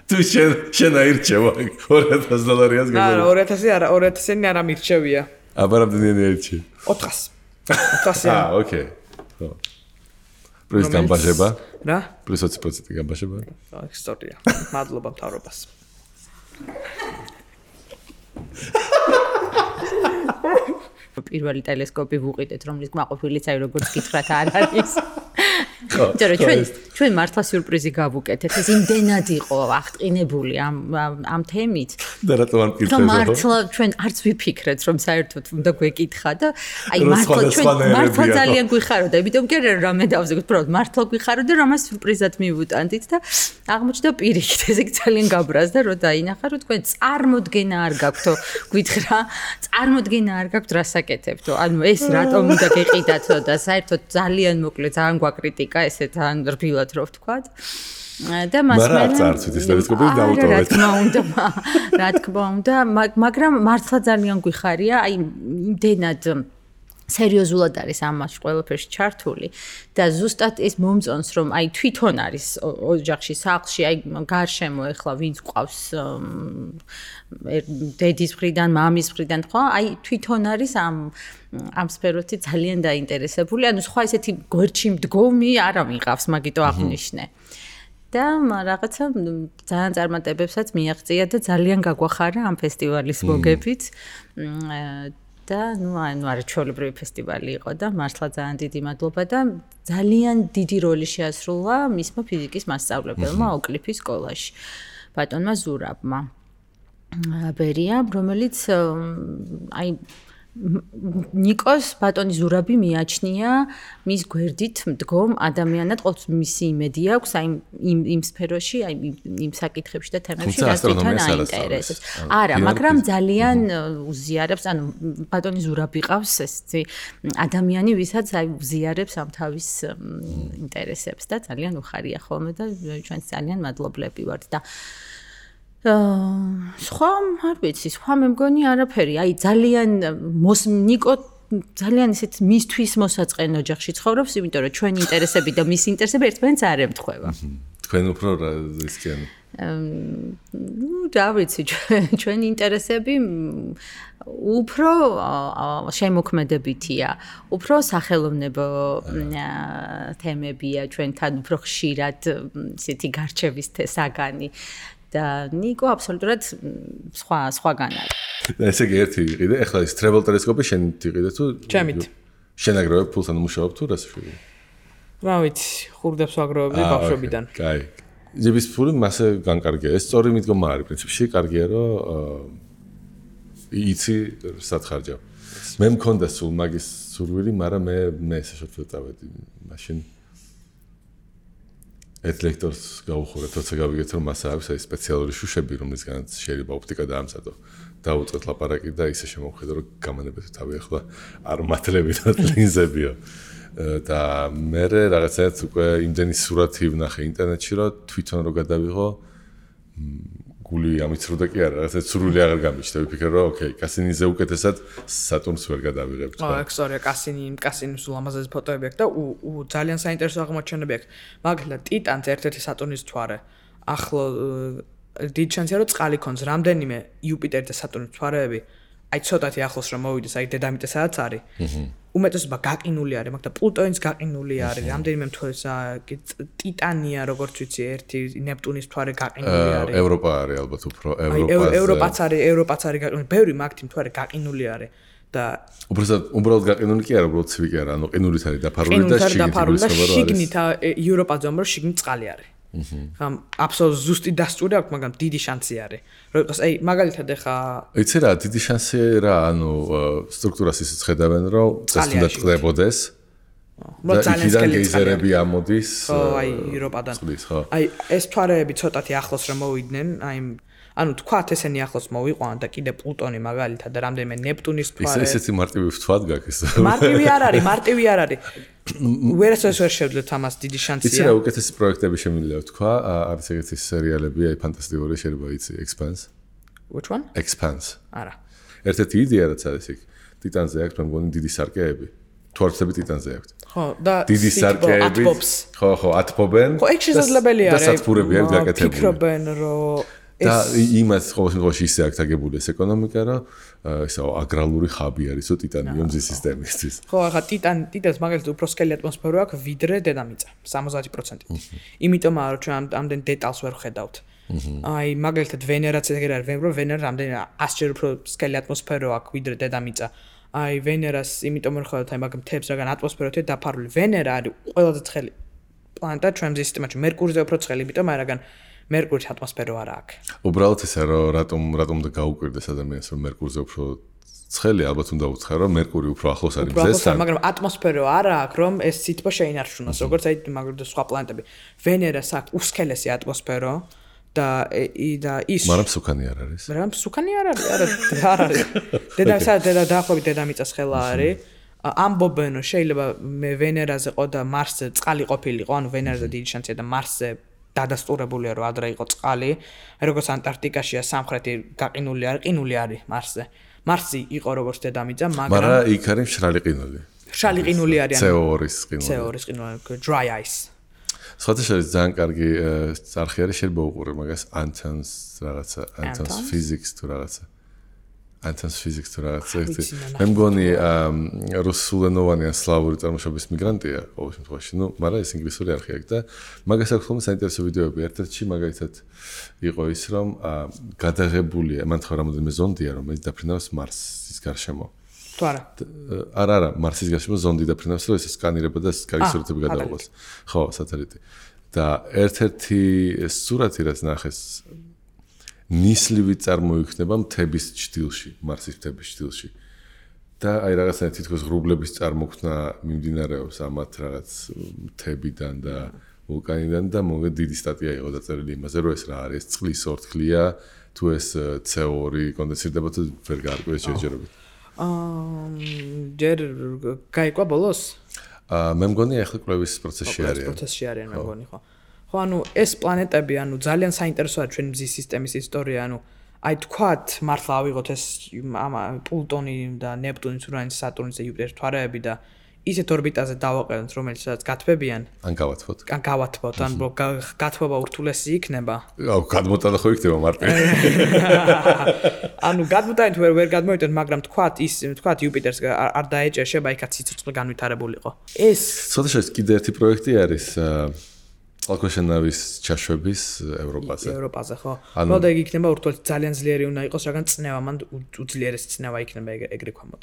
თუ შენ აირჩევა $2000-ს გაგო არა 2000 არა 2000-იანი არ ამირჩევია აბა რამდენიანი აირჩევ 400 ოკეი ხო პლუს გამბაჟება რა პლუს 20% გამბაჟება ისტორია მადლობა მთავრობას პირველი ტელესკოპი ვუყიდეთ რომლის კმაყოფილიც აი როგორც გითხრათ არ არის ჩვენ მართლა სიურპრიზი გავუკეთეთ ეს იმდენად იყო აღტყინებული ამ თემით და რატომ არ მკითხეთ მართლა ჩვენ არც ვიფიქრეთ რომ საერთოდ უნდა გვეკითხა და აი მართლა ძალიან გვიხაროდა იმიტომ კი არა რამე დავზეგოთ უბრალოდ მართლა გვიხაროდა რომ მას სიურპრიზად მივუტანდით და აღმოჩნდა პირიქით ეს იქ ძალიან გაბრაზდა რომ დაინახა რომ თქვენ წარმოდგენა არ გაქვთო გვითხრა წარმოდგენა არ გაქვთ რა საკეთებთო ანუ ეს რატომ უნდა გეყიდათო და საერთოდ ძალიან მოკლედ ძალიან გვაკრიტიკა ესე თან რბილად რო ვთქვათ და მას მე რა თქმა უნდა მაგრამ მართლა ძალიან გვიხარია აი იმდენად სერიოზულად არის ამას ყველაფერში ჩართული და ზუსტად ეს მომწონს რომ აი თვითონ არის ოჯახში სახლში აი გარშემო ეხლა ვინც ყავს დედის მხრიდან მამის მხრიდან ხო აი თვითონ არის ამ სფეროთი ძალიან დაინტერესებული ანუ სხვა ესეთი გვერდში მდგომი არ ამიღავს მაგიტო აღნიშნე და რაღაცა ძალიან წარმატებებსაც მიაღწია და ძალიან გაგვახარა ამ ფესტივალის მოგებით და ნუ არაჩვეულებრივი ფესტივალი იყო და მართლა ძალიან დიდი მადლობა და ძალიან დიდი როლი შეასრულა მისმა ფიზიკის მასწავლებელმა ოკლიფის სკოლაში ბატონმა ზურაბმა ბერიამ რომელიც აი ნიკოს ბატონი ზურაბი მიაჩნია მის გვერდით მდგომ ადამიანად ყოველთვის მისი იმედი აქვს აი იმ სფეროში აი იმ საკითხებში და თემებში რაც თვითონ აინტერესებს არა მაგრამ ძალიან უზიარებს ანუ ბატონი ზურაბი ყავს ესეთი ადამიანი ვისაც აი უზიარებს ამ თავის ინტერესებს და ძალიან უხარია ხოლმე და ჩვენც ძალიან მადლობლები ვართ და სხვა არ ვიცი, სხვა მე მგონი არაფერი. აი ძალიან ნიკო ძალიან ისეთ მისთვის მოსაწყენ ოჯახში ცხოვრობს, იმიტომ რომ ჩვენი ინტერესები და მის ინტერესები ერთმანეთს არ ემთხვევა. თქვენ უფრო რა ისქენ? რა ვიცი, ჩვენი ინტერესები უფრო შემოქმედებითია, უფრო სახელოვნებო თემებია, ჩვენთან უფრო ხშირად ისეთი გარჩევის საგანი. და ნიკო აბსოლუტურად სხვაგან არის. და ესე იგი ერთი იყიდე, ეხლა ის travel ტელესკოპი შენ იყიდე თუ ჩემით. შენ აგროვებ ფულს ან მუშაობ თუ რას შვილი? რა ვიცი, ხურდებს ვაგროვებდი ბავშვობიდან. კაი. ძების ფული მასე განკარგია. ეს სწორი მიდგომა არის პრინციპში, კარგია რომ იცი სათხარჯავ. მე მქონდა სულ მაგის სურვილი, მაგრამ მე ესე შეფრთხილ წავედი მაშინ. ერთ ლექტორს გავუხურეთ, როცა გავიგეთ რომ მას აქვს აი სპეციალური შუშები, რომლისგანაც შეიძლება ოპტიკა დაამზადო. დავუწყეთ ლაპარაკი და ისე შემოვხედო, რომ გამანებეთ თავი ახლა არ მათლები და ლინზებიო. და მე რაღაცააც უკვე იმდენი სურათი ვნახე ინტერნეტში, რომ თვითონ რო გადავიღო გული ამიცრუდა კი არა, რაღაცა სურვილი აღარ გამიჩნდა. ვიფიქრე რომ ოკეი, კასინიზე უკეთესად სატურნს ვერ გადავიღებ. ექსორია კასინის ულამაზესი ფოტოები აქვს და ძალიან საინტერესო აღმოჩენები აქვს. მაგალითად, ტიტანს ერთ-ერთი სატურნის მთვარე. ახლა დიდი შანსია რომ წყალი ქონს, რამდენიმე იუპიტერი და სატურნის მთვარეები, აი ცოტათი ახლოს რომ მოვიდეს, აი დედამიწა სადაც არის. უმეტესობა გაყინული არის, მაგრამ პლუტონის გაყინული არის. რამდენიმე მთვარეა, ტიტანია, როგორც ვიცი, ერთი ნეპტუნის მთვარე გაყინული არის. ევროპა არის ალბათ უფრო ევროპაც არის გაყინული. ბევრი მაგთი მთვარე გაყინული არის. და უბრალოდ გაყინული კი არა, უბრალოდ ცივი კი არა, ანუ ყინულით არის დაფარული და შიგნით ევროპაზე რომ შიგნით წყალი არის. ხა აბსოლუტურად ზუსტი დასტური აქვს, მაგრამ დიდი შანსი არის. რომ იყოს, აი მაგალითად ეხა იცი რა, დიდი შანსი რა, ანუ სტრუქტურას ისიც ხედავენ, რომ ეს უნდა წყდებოდეს. ძალიან სკელი გეიზერები ამოდის. აი ევროპადან. აი ეს მთვარეები ცოტათი ახლოს რომ მოვიდნენ, აი ანუ თქვათ ესენი ახლოს მოვიყვანოთ და კიდე პლუტონი მაგალითად და რამდენიმე ნეპტუნის მთვარე. ისეთი მარტივი ვთვათ გაქვს. მარტივი არ არის. ვერასოდეს ვერ შევძლეთ ამას დიდი შანსია. იცი რა, უკეთესი პროექტები შემიძლია ვთქვა, არის ეგეთი სერიალები, აი ფანტასტიკური შეიძლება იცი, Expanse. Which one? Expanse. არა. ერთ-ერთი იდეა რაც არის იქ, ტიტანზე აქვს, მე მგონი დიდი სარკეები. თვალწები ტიტანზე აქვს. ხო, და დიდი სარკეები. ხო, ათბობენ. ხო, ეგ შესაძლებელია და სათბურები არის გაკეთებული. ფიქრობენ, რომ და იმას ყოველ შემთხვევაში ისე აქვს აგებული ეს ეკონომიკა, რომ ესა აგრალური ხაბი არისო ტიტანიო მზის სისტემისთვის. ხო, ახლა ტიტანს მაგალითად უფრო სკელი ატმოსფერო აქვს ვიდრე დედამიწა, 70%. იმიტომაა რომ ჩვენ ამდენ დეტალს ვერ ვხედავთ. აი მაგალითად ვენერაც ეგრე არის, ვენერა რამდენი 100-ჯერ უფრო სკელი ატმოსფერო აქვს ვიდრე დედამიწა. აი ვენერას იმიტომ ვერ ხედავთ, აი მაგ მთებს რაგან ატმოსფეროთია დაფარული. ვენერა არის ყველაზე ცხელი პლანეტა ჩვენ მზის სისტემაში, მერკურიზე უფრო ცხელი, იმიტომ რაგან მერკურის ატმოსფერო არა აქვს. უბრალოდ ესა რომ რატომ და გაუკვირდეს ადამიანს რომ მერკურზე უფრო ცხელი, ალბათ უნდა უცხარო რომ მერკური უფრო ახლოს არის მზესთან. მაგრამ ატმოსფერო არა აქვს რომ ეს სითბო შეინარჩუნოს, როგორც აი მაგალითად სხვა პლანეტები. ვენერას აქვს უსქელესი ატმოსფერო და ის მაგრამ სუქანი არ არის. მაგრამ სუქანი არ არის. დაახლოებით დედამიწას ხელა არის. ამბობენ რომ შეიძლება მე ვენერაზე ყო და მარსზე წყალი ყოფილიყო, ანუ ვენერაზე დიდი შანსია და მარსზე დადასტურებულია რომ ადრე იყო წყალი, როგორც ანტარქტიკაშია სამხრეთი გაყინული არის, ყინული არის მარსზე. მარსი იყო როგორც დედამიწა, მაგრამ იქ არის მშრალი ყინული. მშრალი ყინული არის, CO2-ის ყინული. CO2-ის ყინული, dry ice. სხვადასხვა ძალიან კარგი არხი არის, შეიძლება უყურე მაგას Anton's რაღაცა, Anton's physics თუ რაღაცა. Anton's physics თუ რაღაცა. მე მგონი რუსულენოვანი ან სლავური წარმოშობის მიგრანტია ყოველ შემთხვევაში, ნუ, მაგრამ ეს ინგლისური არხი აქვს და მაგას აქვს ხოლმე საინტერესო ვიდეოები. ერთ-ერთში მაგალითად იყო ის, რომ გადაღებულია, მან თქვა რამოდენიმე ზონდია, რომელიც დაფრინავს მარსის გარშემო. თუ არა. არა, მარსის გარშემო ზონდი დაფრინავს, რომ ეს სკანირება და კარგი სურათები გადაიღოს. ხო, სატელიტი. და ერთ-ერთი სურათი რაც ნახეს ნისლივი წარმოიქმნება მთების ჭდილში, მარსის მთების ჭდილში. და აი რაღაცა თითქოს ღრუბლების წარმოქმნა მიმდინარეობს ამათ რაღაც მთებიდან და ვულკანიდან და მოგე დიდი სტატია იყო დაწერილი იმაზე, რომ ეს რა არის, წყლის ორთქლია, თუ ეს CO2 კონდენსირდება თუ ვერ გაარკვიეს ჯერჯერობით. ჯერ გაიგვა ბოლოს? მე მგონი ახლა კვლევის პროცესში არიან. პროცესში არიან მე მგონი, ხო. ხო, ანუ ეს პლანეტები, ანუ ძალიან საინტერესოა ჩვენ მზის სისტემის ისტორია, ანუ აი თქვათ, მართლა ავიღოთ ეს პლუტონი და ნეპტუნი, ურანი, სატურნი და იუპიტერი მთვარეები და ისეთ ორბიტაზე დავაყენოთ, რომელსაც გათბებიან. ან გავათბოთ. ან გავათბოთ, ან გათბობა ურთულესი იქნება. აუ, გადმოტანა ხო იქნება მარტივ. ანუ გადმოტანით ვერ გადმოვიტანთ, მაგრამ თქვათ იუპიტერს არ დაეჭერშება, იქაც სიცოცხლე განვითარებულიყო. ეს ცოტა კიდე ერთი პროექტი არის წყალქვეშა-ნავის ჩაშვების ევროპაზე. ევროპაზე, ხო. მოდა ეგ იქნება ურთულესი ძალიან ძლიერი უნდა იყოს, რადგან წნევა მან უძლიერესი წნევა იქნება ეგრე ქვამოთ.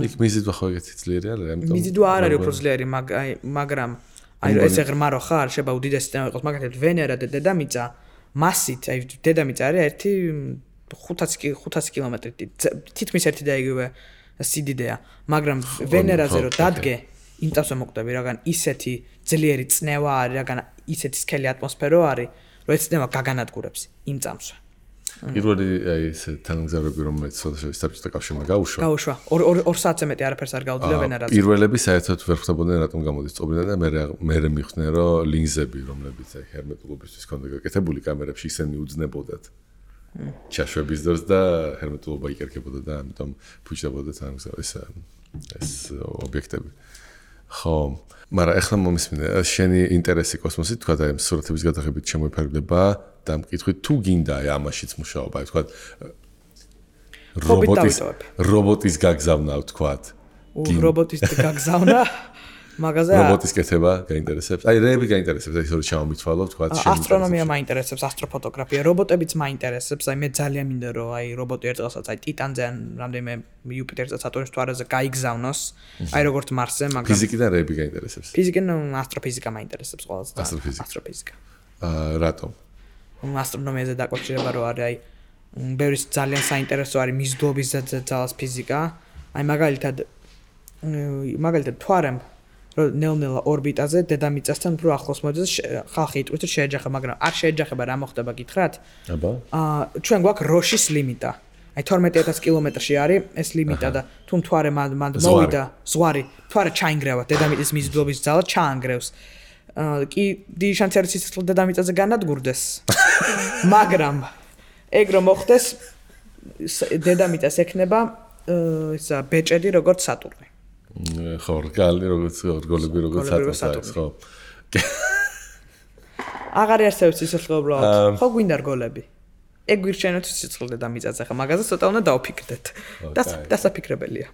იქ მიზიდვა ხო ეგეთი ძლიერი არის, ამიტომ მიზიდვა არ არის უფრო ძლიერი, მაგრამ აი ესე ღრმა რო ხარ, შეიძლება უდიდესი სისტემა იყოს, მაგალითად ვენერა და დედამიწა მასით, აი დედამიწა არის 500 კილომეტრი, თითქმის ერთი და იგივე სიდიდეა, მაგრამ ვენერაზე რო დადგე, იმტავზე მოკვდები, რაგან ისეთი ძლიერი წნევა არის, რაგან ისეთი სქელი ატმოსფერო არის, რომ ეს წნევა გაგანადგურებს იმ წამსვე. პირველი აი ეს თანამგზავრები რომელიც საბჭოთა კავშირმა გაუშვა 2 საათზე მეტი არაფერს არ გაუძლია ვენერაზე. პირველები საერთოდ ვერ ხვდებოდნენ რატომ გამოდის წობინა და მე მიხვდნენ რომ ლინზები რომლებიც აი ჰერმეტულობისთვის ქონდა გაკეთებული კამერებში ისე მიუძნებოდათ ჩაშვების დროს და ჰერმეტულობა იკერქებოდა და ამიტომ ფუჭდებოდა ეს ობიექტები. ხო, მაგრამ ახლა მომისმინე შენი ინტერესი კოსმოსით თქვა და ამ სურათების გადაღებით შემოიფარგლება და მკითხვით თუ გინდა ამაშიც მუშაობა, თქვა რობოტის გაგზავნა თქვა. რობოტის გაგზავნა მაგაზე რობოტის კეთება გაინტერესებს. აი რეები გაინტერესებს, აი ისე ჩამომითვალო თქვა შენ. ასტრონომია მაინტერესებს, ასტროფოტოგრაფია, რობოტებიც მაინტერესებს. აი მე ძალიან მინდა რომ აი რობოტი ერთდღესაც აი ტიტანზე ან რამდენიმე იუპიტერზე სატურნის მთვარეზე გაიგზავნოს, აი როგორც მარსზე, მაგრამ ფიზიკიდან რეები გაინტერესებს. ფიზიკიდან ასტროფიზიკა მაინტერესებს ყველაზე. ასტროფიზიკა. რატომ? ასტრონომიაზე დაკავშირება რო არის, აი ბევრი ძალიან საინტერესო არის მიზიდულობის ძალას ფიზიკა. აი მაგალითად მთვარემ რომ ნელ-ნელა ორბიტაზე დედამიწასთან უფრო ახლოს მოდის, ხალხი იტყვის რომ შეეჯახება, მაგრამ არ შეეჯახება, რა მოხდება გითხრათ? აბა. ჩვენ გვაქვს როშის ლიმიტა. აი 12000 კილომეტრში არის ეს ლიმიტა და თუ მთვარე მანდ მოვიდა ზღვარი, მთვარე ჩაინგრევა, დედამიწის მიზიდულობის ძალა ჩაანგრევს. კი დიდი შანსი არის სიცოცხლე დედამიწაზე განადგურდეს. მაგრამ ეგ რომ მოხდეს დედამიწას ექნება ისა ბეჭედი როგორც სატურნი. ხო, რგოლები როგორც სატურნი, ხო. აღარ არსებობს სიცოცხლე უბრალოდ. ხო გვინდა რგოლები. ეგ გვირჩენოთ სიცოცხლე დედამიწაზე, ხა მაგაზე ცოტა უნდა დავფიქრდეთ. დასაფიქრებელია.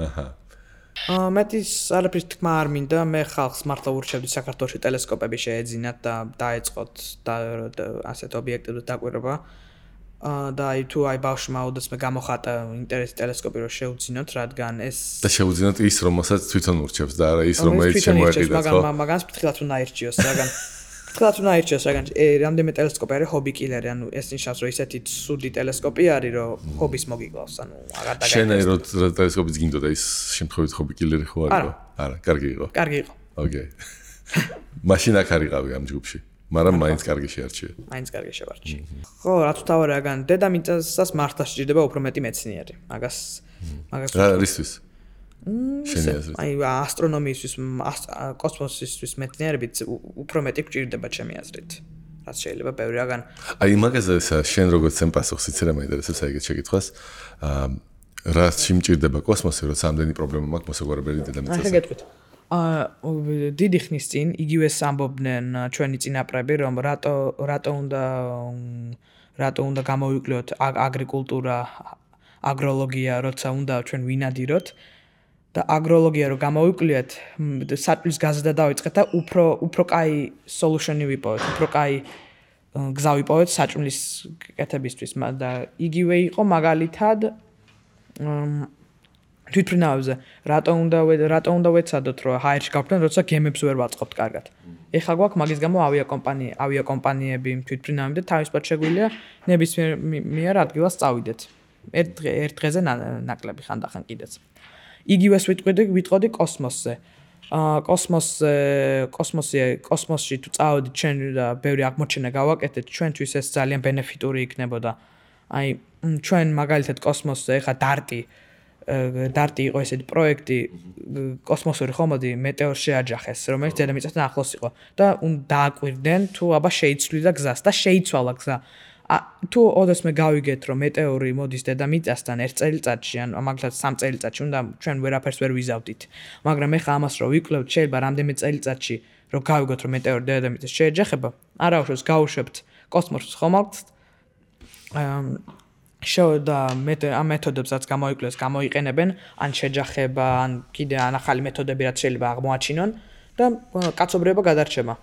აჰა. მეტის არაფრის თქმა არ მინდა, მე ხალხს მართლა ურჩევდი საქართველოში ტელესკოპები შეეძინათ და დაეწყოთ და ასეთ ობიექტებზე დაკვირვება. და აი თუ აი ბავშვმა ოდესმე გამოხატა ინტერესი ტელესკოპი რომ შეუძინოთ, რადგან ეს და შეუძინოთ ის რომელსაც თვითონ ურჩევს და არა ის რომელიც შემოეყიდათ, ხო? მაგას ფრთხილად უნდა აირჩიოს, რადგან რამდენიმე ტელესკოპი არის ჰობი კილერი, ანუ ეს ნიშნავს რომ ისეთი სუდი ტელესკოპი არის რომ ჰობის მოგიკლავს, ანუ აღარ დაგაიგებს. შენ აი რომ ტელესკოპიც გინდოდა ის შემთხვევით ჰობი კილერი ხო არის? არა, კარგი იყო. კარგი იყო. ოკეი. მაშინ აქ არიყავი ამ ჯგუფში. მაგრამ მაინც კარგი შეარჩიე. მაინც კარგი შევარჩიე. ხო, რაც თავი რაგან დედამიწას მართლა სჭირდება უფრო მეტი მეცნიერი. მაგას რა რისთვის? შენი აზრით. აი ასტრონომიისთვის, კოსმოსისთვის მეცნიერებით უფრო მეტი გვჭირდება ჩემი აზრით. რაც შეიძლება ბევრი რაგან. აი მაგაზე შენ როგორც სენ პასუხს იცი რა მაინტერესებს აი ეგეთ შეკითხვას. რა სიმჭირდება კოსმოსი, რომ სამდენი პრობლემა მაქვს მოსაგვარებელი დედამიწაზე. აი გეტყვით. დიდი ხნის წინ იგივე ამბობდნენ ჩვენი წინაპრები, რომ რატო უნდა გამოვიკლოთ აგრიკულტურა, აგროლოგია, როცა უნდა ჩვენ ვინადიროთ და აგროლოგია რო გამოვიკვლიათ, საწვლის გაზრდა დავიწყეთ და უფრო კაი სოლუშენი ვიპოვეთ, უფრო კაი გზა ვიპოვეთ საჭმლის კეთებისთვის და იგივე იყო მაგალითად თვითმფრინავებზე რატო უნდა ვეცადოთ რომ ჰაერში გავხდეთ, როცა გემებს ვერ ვაწყობთ კარგად. ეხლა გვაქვს მაგის გამო ავიაკომპანიები თვითმფრინავები და თავისუფლად შეგვიძლია ნებისმიერ ადგილას წავიდეთ. ერთ დღეზე ნაკლები ხანდახან კიდეც. იგივეს ვიტყოდი კოსმოსზე. კოსმოსში თუ წავედით ჩვენ და ბევრი აღმოჩენა გავაკეთეთ, ჩვენთვის ეს ძალიან ბენეფიტური იქნებოდა. აი ჩვენ მაგალითად კოსმოსზე ეხა დარტი იყო ესეთი პროექტი კოსმოსური ხომალდი მეტეორს შეაჯახეს, რომელიც დედამიწასთან ახლოს იყო და დააკვირდნენ თუ აბა შეიცვლიდა გზას და შეიცვალა გზა. თუ ოდესმე გავიგეთ რომ მეტეორი მოდის დედამიწასთან 1 წელიწადში ან მაგალითად 3 წელიწადში უნდა ჩვენ ვერაფერს ვერ ვიზავდით. მაგრამ ეხა ამას რო ვიკლევთ შეიძლება რამდენიმე წელიწადში რომ გავიგოთ რომ მეტეორი დედამიწას შეეჯახება, არაუშავს გავუშვებთ კოსმოსის ხომალდს და ამ მეთოდებსაც გამოიყენებენ ან შეჯახება ან კიდე ან ახალი მეთოდები რაც შეიძლება აღმოაჩინონ და კაცობრიობა გადარჩება.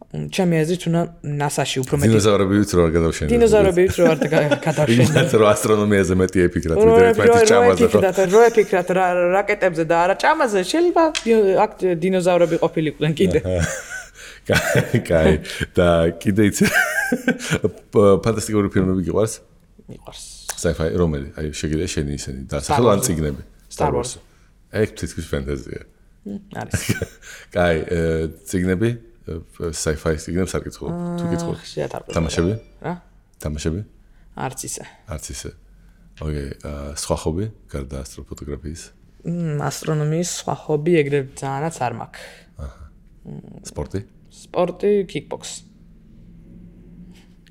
ჩემი აზრით უნდა NASA-ში უფრო მეტი დინოზავრები ვიწრო არ გადავშენებთ. დინოზავრები ვიწრო არ გადავშენებთ. რო ასტრონომიაზე მეტი ეფიქრათ, ვიდრე ერთმანეთის ჭამაზე. რო ეფიქრათ რაკეტებზე და არა ჭამაზე, შეიძლება აქ დინოზავრები ყოფილიყვნენ კიდე. კაი, და კიდე იცი ფანტასტიკური ფილმები გიყვარს? მიყვარს. Sci-fi რომელი? აი შეგიძლია შენი ისინი დასახელო ან წიგნები? Star Wars. ეგ თითქმის ფენტეზია. არის. კაი, წიგნები? Sci-fi წიგნებს არ გითხო. თუ გითხო. თამაშები? რა? თამაშები? არც ისე. არც ისე. ოკეი, სხვა ხობი გარდა ასტროფოტოგრაფიის? ასტრონომიის სხვა ხობი ეგრევე ძალიანაც არ მაქვს. აჰა. სპორტი? სპორტი, kickbox.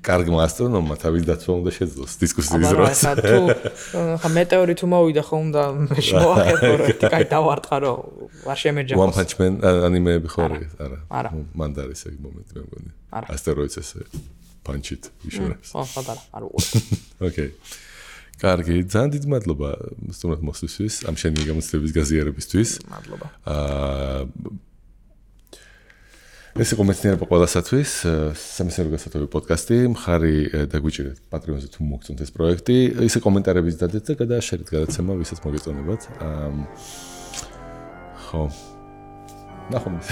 კარგმა ასტრონომმა თავის დაცვა უნდა შეძლოს დისკუსიის დროს. აბა, თუ ხა მეტეორი თუ მოვიდა ხომ და მოახერხო რომ კაი დავარტყა რომ არ შემეჯახოს. One Punch Man ანიმეები ხო არა? არა. მან და არის ეგ მომენტი მე მგონი. არა. ასტეროიდს ესე პანჩით იშურებს. ხო, ხოდარა, არ უყურე. ოკეი. კარგი, ძალიან დიდი მადლობა სტუმრად მოსვლისთვის, ამ შენი გამოცდილების გაზიარებისთვის. მადლობა. ეს იყო მეცნიერება ყველასათვის, სამეცნიერო გასათვალისწინებელ პოდკასტი. მხარი დაგვიჭირეთ Patreon-ზე თუ მოგწონთ ეს პროექტი. ისე კომენტარებიც დადეთ და გადააშერეთ გადაცემა, ვისაც მოგეწონებათ. ხო. ნახვამდის.